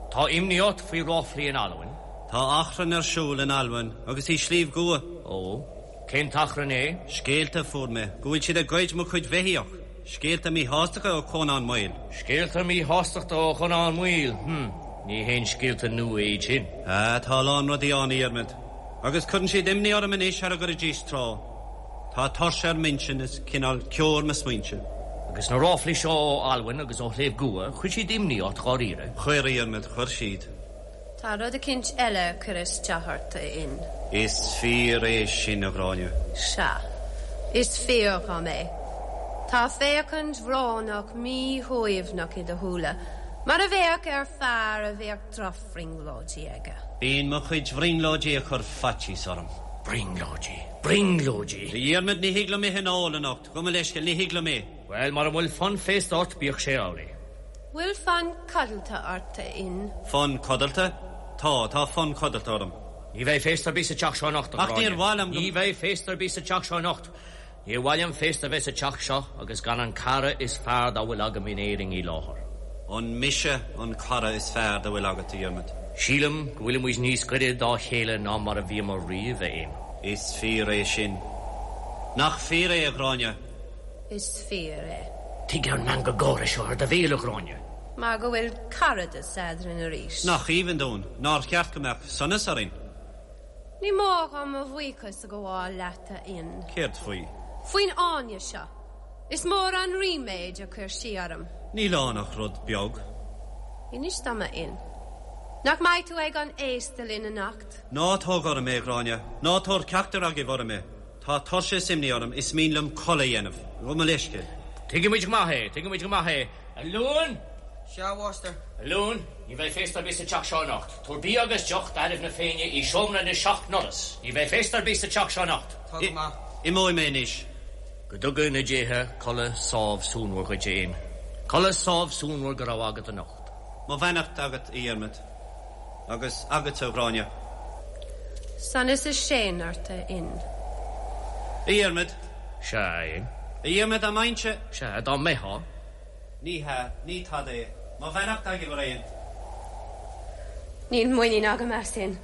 Tá imní ort faoi ráflaí in Albain? Tá achrann ar siúl in Albain agus i Sliabh gCua. Ó. Cén t-achrann é? Scéalta a fuair mé go bhfuil siad ag goid mo chuid bheithíoch. Scéalta míshástachta ó Chonán Maol. Scéalta míshástachta ó Chonán Maol? Hm. Ní haon scéalta nua iad sin. Ah, tá a lán rudaí ann, a Dhiarmaid. Agus cuireann siad imní orm anois thar a gcuiridís tráth. Tá tuirse ar m'intinn is cineál ceo ar mo smaointe. Agus na ráflaí seo ó Albain agus ó Shliabh gCua, chuir siad imní ort dháiríre? Chuir, a Dhiarmaid, chuir siad. Tá rud eicínt eile ag cur isteach ort, a Fhinn. Is fíor é sin, a Ghráinne. Sea, is fíor dhom é. Tá féachaint bhrónach míshuaimhneach i do shúile, mar a bheadh ar fear a bheadh drochbhrionglóidí aige. Bíonn mo chuid bhrionglóidí ag cur faitíos orm. Brionglóidí. Brionglóidí. A Dhiarmaid, ní thig liom ithe ná ól anocht. Gabh mo leithscéal, ní thig liom é. Bhuel, mura bhfuil fonn féasta ort, bíodh sé amhlaidh. Bhfuil fonn codlata ort, a Fhinn? Fonn codlata? Tá, tá fonn codlata orm. Ní bheidh féasta ar bith sa teach seo anocht, a Ach níor Ghráinne. mhaith liom go. Ní bheidh féasta ar bith sa teach seo anocht. Níor mhaith liom féasta a bheith sa teach seo agus gan an cara is fearr dá bhfuil agam in Éirinn i láthair. An mise an cara is fearr dá bhfuil agat, a Dhiarmaid? Sílim go bhfuilimid níos gaire dá chéile ná mar a bhíomar riamh, a Fhinn. Is fíor é sin. Nach fíor é, a Ghráinne? Is fíor é. Tuige an meangadh gáire seo ar do bhéal, a Ghráinne? Mar go bhfuil caradas eadrainn arís. Nach aoibhinn dúinn? Nár cheart go mbeadh sonas orainn? Ní mór dhom mo bhuíochas a ghabháil leat, a Fhinn. Céard faoi? Faoin fháinne seo. Is mór an ríméad a chuir sí orm. Níl ann ach rud beag. Inis dom, a Fhinn. Nach mbeidh tú ag an fhéasta linn anocht? Ná tóg orm é, a Ghráinne. Ná tabhair ceachtar agaibh orm é. Tá tuirse is imní orm, is mian liom codladh a dhéanamh. Gabh mo leithscéal. Tuigimid go maith é, tuigimid go maith é. A Luain! Sea, a Mháistir. A Luain, ní bheidh féasta ar bith sa teach seo anocht. Tabhair bia agus deoch d'fhearaibh na Féinne i seomra na seacht ndoras. Ní bheidh féasta ar bith sa teach seo anocht. Tá go maith. Imeoidh mé anois. Go dtuga na déithe codladh sámh suanmhar dhuit, a Fhinn. Codladh sámh suanmhar go raibh agat anocht. Mo bheannacht agat, a Dhiarmaid. Agus agatsa, a Ghráinne. Sonas is séan ort, a Fhinn. A Dhiarmaid. Sea, a Fhinn. A Dhiarmaid, dá mbeinnse. Sea, dá mbeifeá. Ní hea, ní tada é. Mo bheannacht agaibh araon. Níl muinín agam as Finn.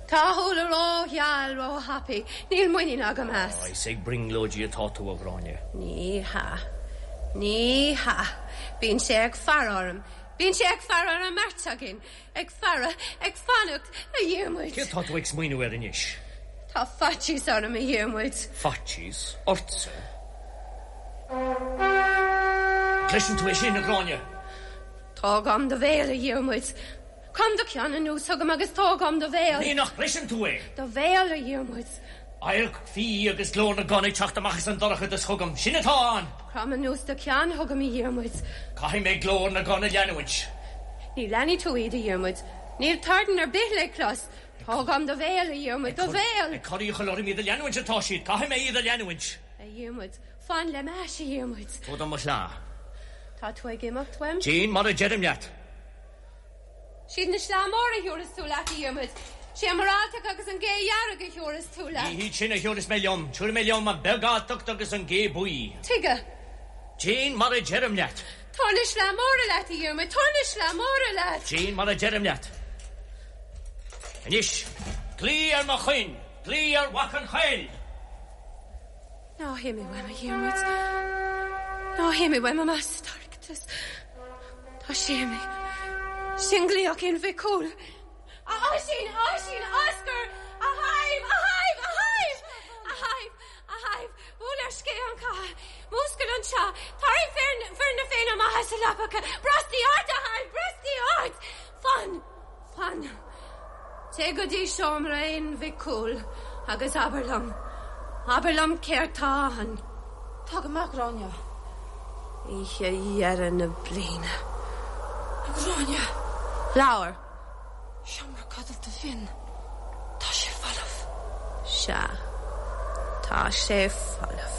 Tá a shúile rógheal róthapaidh. Níl muinín agam as. Is ag brionglóidí atá tú, a Ghráinne. Ní hea. Ní hea. Bíonn sé ag faire orm. Bíonn sé ag faire ar an mbeirt againn. Ag faire, ag fanacht, a Dhiarmuid. Céard tá tú ag smaoineamh air anois? Tá faitíos orm, a Dhiarmuid. Faitíos? Ortsa? Cloiseann tú é sin, a Ghráinne? Tóg uaim do bhéal, a Dhiarmuid. Crom do cheann anuas chugam agus tóg uaim do bhéal. Ní nach gcloiseann tú é? Do bhéal, a Dhiarmuid. Adharc fiaigh agus glór na gcon ag teacht amach as an dorchadas chugam. Sin atá ann! Crom anuas do cheann chugam, a Dhiarmuid. Caithfidh mé glór na gcon a leanúint. Ní leanfaidh tú iad, a Dhiarmuid. Níl torann ar bith le clos. Tóg uaim do bhéal, a Dhiarmuid, do bhéal! Ag cur iachall orm iad a leanúint atá siad. Caithfidh mé iad a leanúint. A Dhiarmuid, fan le m'ais, a Dhiarmuid. Tabhair dom mo shleá. Tá tú ag imeacht uaim? Déan mar a deirim leat. Siad na sleá móra a thiúrfas tú leat, a Dhiarmuid. Sé an muralltach agus an ghé dhearg a thiúrfas tú leat. Ní hiad sin a thiúrfas mé liom. Tiúrfaidh mé liom an bheag-alltacht agus an ghé buí. Tuige? Déan mar a deirim leat. Tabhair na sleá móra leat, a Dhiarmuid. Tabhair na sleá móra leat. Déan mar a deirim leat. Anois, glaoigh ar mo choin. Glaoigh ar Mhac an Choill. Ná himigh uaim, a Dhiarmuid. Ná himigh uaim amach sa dorchadas. Tá sé imithe. Sin glaoch Fhinn Mhic Cumhaill. A Oisín, a Oisín, Oscar! A Shadhbh, a Shadhbh, a Shadhbh! A Shadhbh, a Shadhbh, buail ar scéith an chatha. Múscail anseo. Tarraing fir na Féinne amach as a leapacha. Brostaigh ort, a Shadhbh, brostaigh ort! Fan! Fan. Téigh go dtí seomra Fhinn Mhic Cumhaill agus abair liom, abair liom céard tá ann. Tá go maith, a Ghráinne. Oíche dheireadh na bliana. A Ghráinne! Labhair. Seomra codlata Finn. Tá sé folamh. Sea. Tá sé folamh.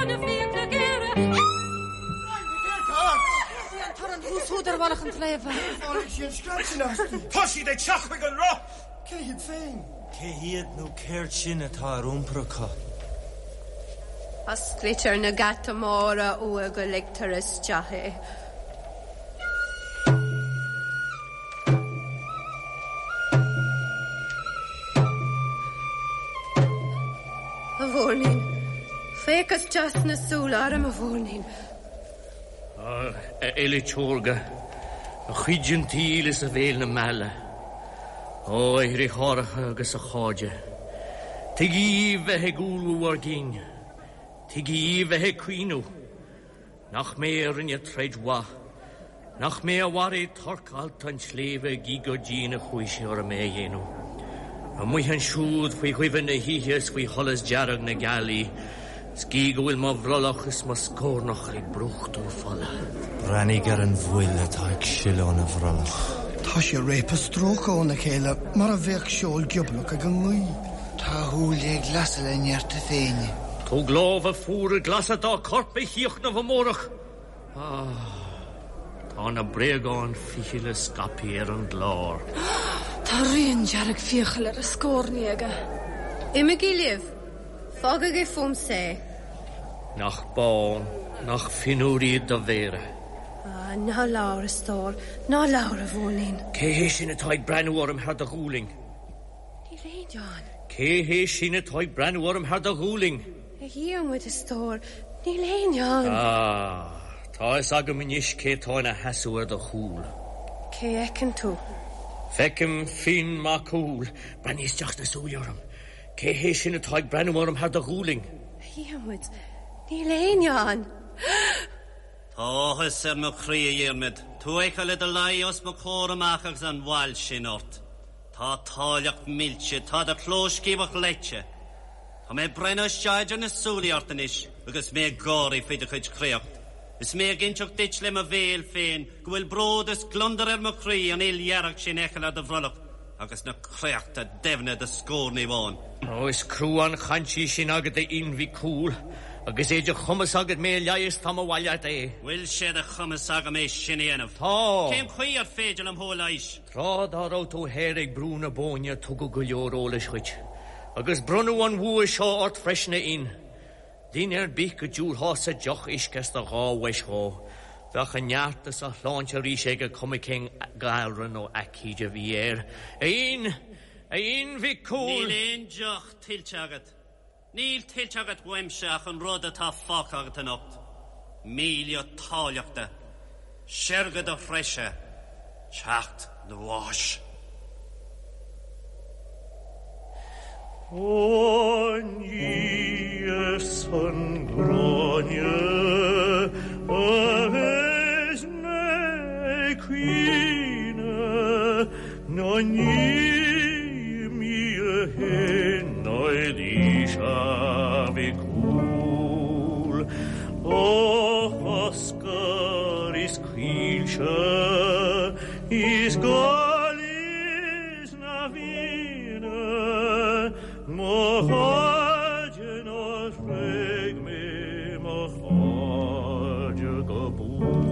na fiacla géara. An torann thuas úd ar mhullach an tsléibhe. Tháinig sí an scread sin aisti. Tá siad ag teacht chuig an roth! Cé hiad féin? Cé hiad nó céard sin atá ar iompar acu? Osclaítear na geata móra uaidh go ligtear isteach é. A mhúirnín, féach isteach sna súile orm, a mhúirnín. A fhile órga, a chuid an tsaoil is a bhéal na meala. Ó, a dhriotháireacha agus a chairde, tuige dhíbh bheith ag umhlú bhur gcinn? Tuige dhíbh bheith ag caoineadh? Nach mé a rinne troid mhaith? Nach mé a mharaigh torc allta an tsléibhe gidh gur dian a chuaigh sé orm é a dhéanamh? Amuigh ansiúd faoi dhuibhe na hoíche is faoi sholas dearg na gealaí, 's gidh go bhfuil mo bhrollach is mo scórnach ag brúchtadh fola. Breathnaigh ar an bhfuil atá ag sileadh óna bhrollach. Tá sé ag réabadh stróicthe óna chéile mar a bheadh seol gioblach ag an ngaoth. Tá a shúile ag lasadh le neart a Féinne. Tóg lámha fuara glasa dá corp a chríochnamh amárach. Ah, tá na bréagáin fichille scaipthe ar an gclár. Tá rian dearg fiacail ar a scórnaí aige. Imígí libh. Fágaigí fúmsa é. Nach bán, nach fionnuar iad do mhéara. Ah, ná labhair, a stór, ná labhair, a mhúirnín. Cé hé sin atá ag breathnú orm thar do ghualainn? Níl éinne ann. Cé hé sin atá ag breathnú orm thar do ghualainn? A Dhiarmuid, a stór, níl éinne ann. Ah, tá fhios agam anois cé tá ina sheasamh ar do chúl. Cé a fheiceann tú? Feicim Finn Mac Cumhaill. Breathnaigh isteach sna súile orm. Cé hé sin atá ag breathnú orm thar do ghualainn? A Dhiarmuid, níl éinne ann. Tá áthas ar mo chroí, a Dhiarmaid, tú a fheiceáil i do luí os mo chomhair amach agus an bhail sin ort. Tá t'áilleacht millte, tá do chlóscíobadh leite. Tá mé ag breathnú isteach idir na súilí ort anois agus mé ag gáirí faoi do chuid créacht, is mé ag inseacht duit le mo bhéal féin go bhfuil bród is gliondar ar mo chroí an fhuil dhearg sin a fheiceáil ar do bhrollach agus na créachta doimhne i do scórnaí bhán. Ó, is crua an chaint í sin agat, a Fhinn Mhic Cumhaill, agus é de chumas agat mé a leigheas, tá mo mhaith leat é. Bhfuil sé de chumas agam é sin a dhéanamh? Tá. Cén chaoi ar féidir liom thú a leighis? Tráth dá raibh tú thoir ag Brú na Bóinne tugadh go leor eolais dhuit, agus bronnadh an bhua seo ort freisin, a Fhinn. Duine ar bith go dtabharfása deoch uisce as do dhá bhois dhó, bheadh a neart is a shláinte arís aige cuma cén galra nó aicíd a bhí air. A Fhinn! A Fhinn Mhic Cumhaill! Níl aon deoch tuillte agat. Níl tuillte agat uaimse ach an rud atá fágtha agat anocht, míle t'áilleachta, seirge do threise, teacht do bháis. Ó ní ar son Gráinne a bheas mé ag caoineadh ná ní mí Nailís a Mhic Cumhaill, ó Oscar is Caoilte is Gaillimh is na Fianna, mo chairde nár thréig mé mo chairde go buan.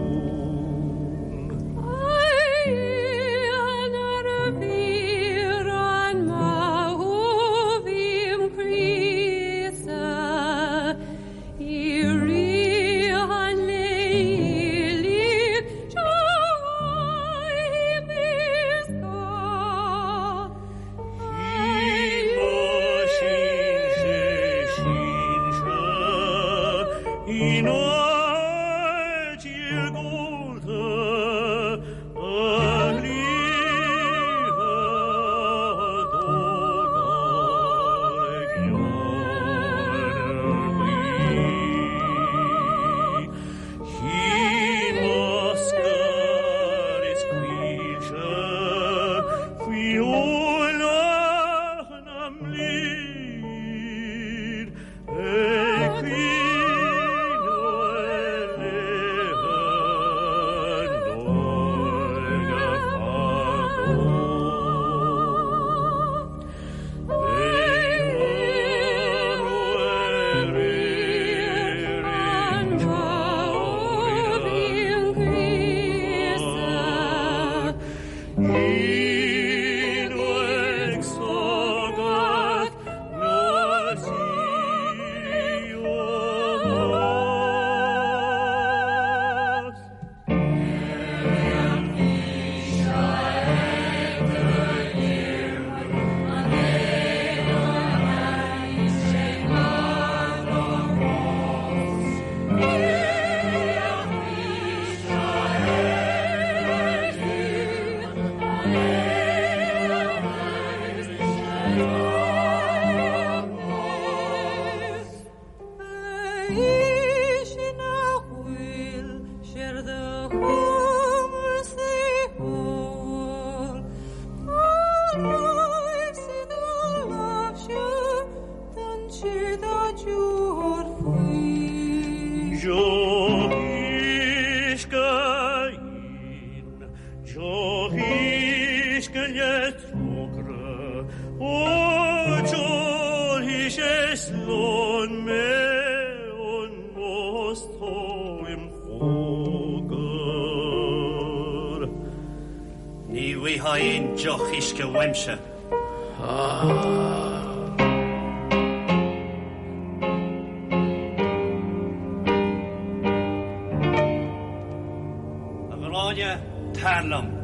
Deoch uisce íon, deoch uisce le trócaire, ó d'ólfaidh sé slán mé anuas tó im chóngar. Ní bhfaightheá aon deoch uisce uaimse. A Ghráinne, tar liom.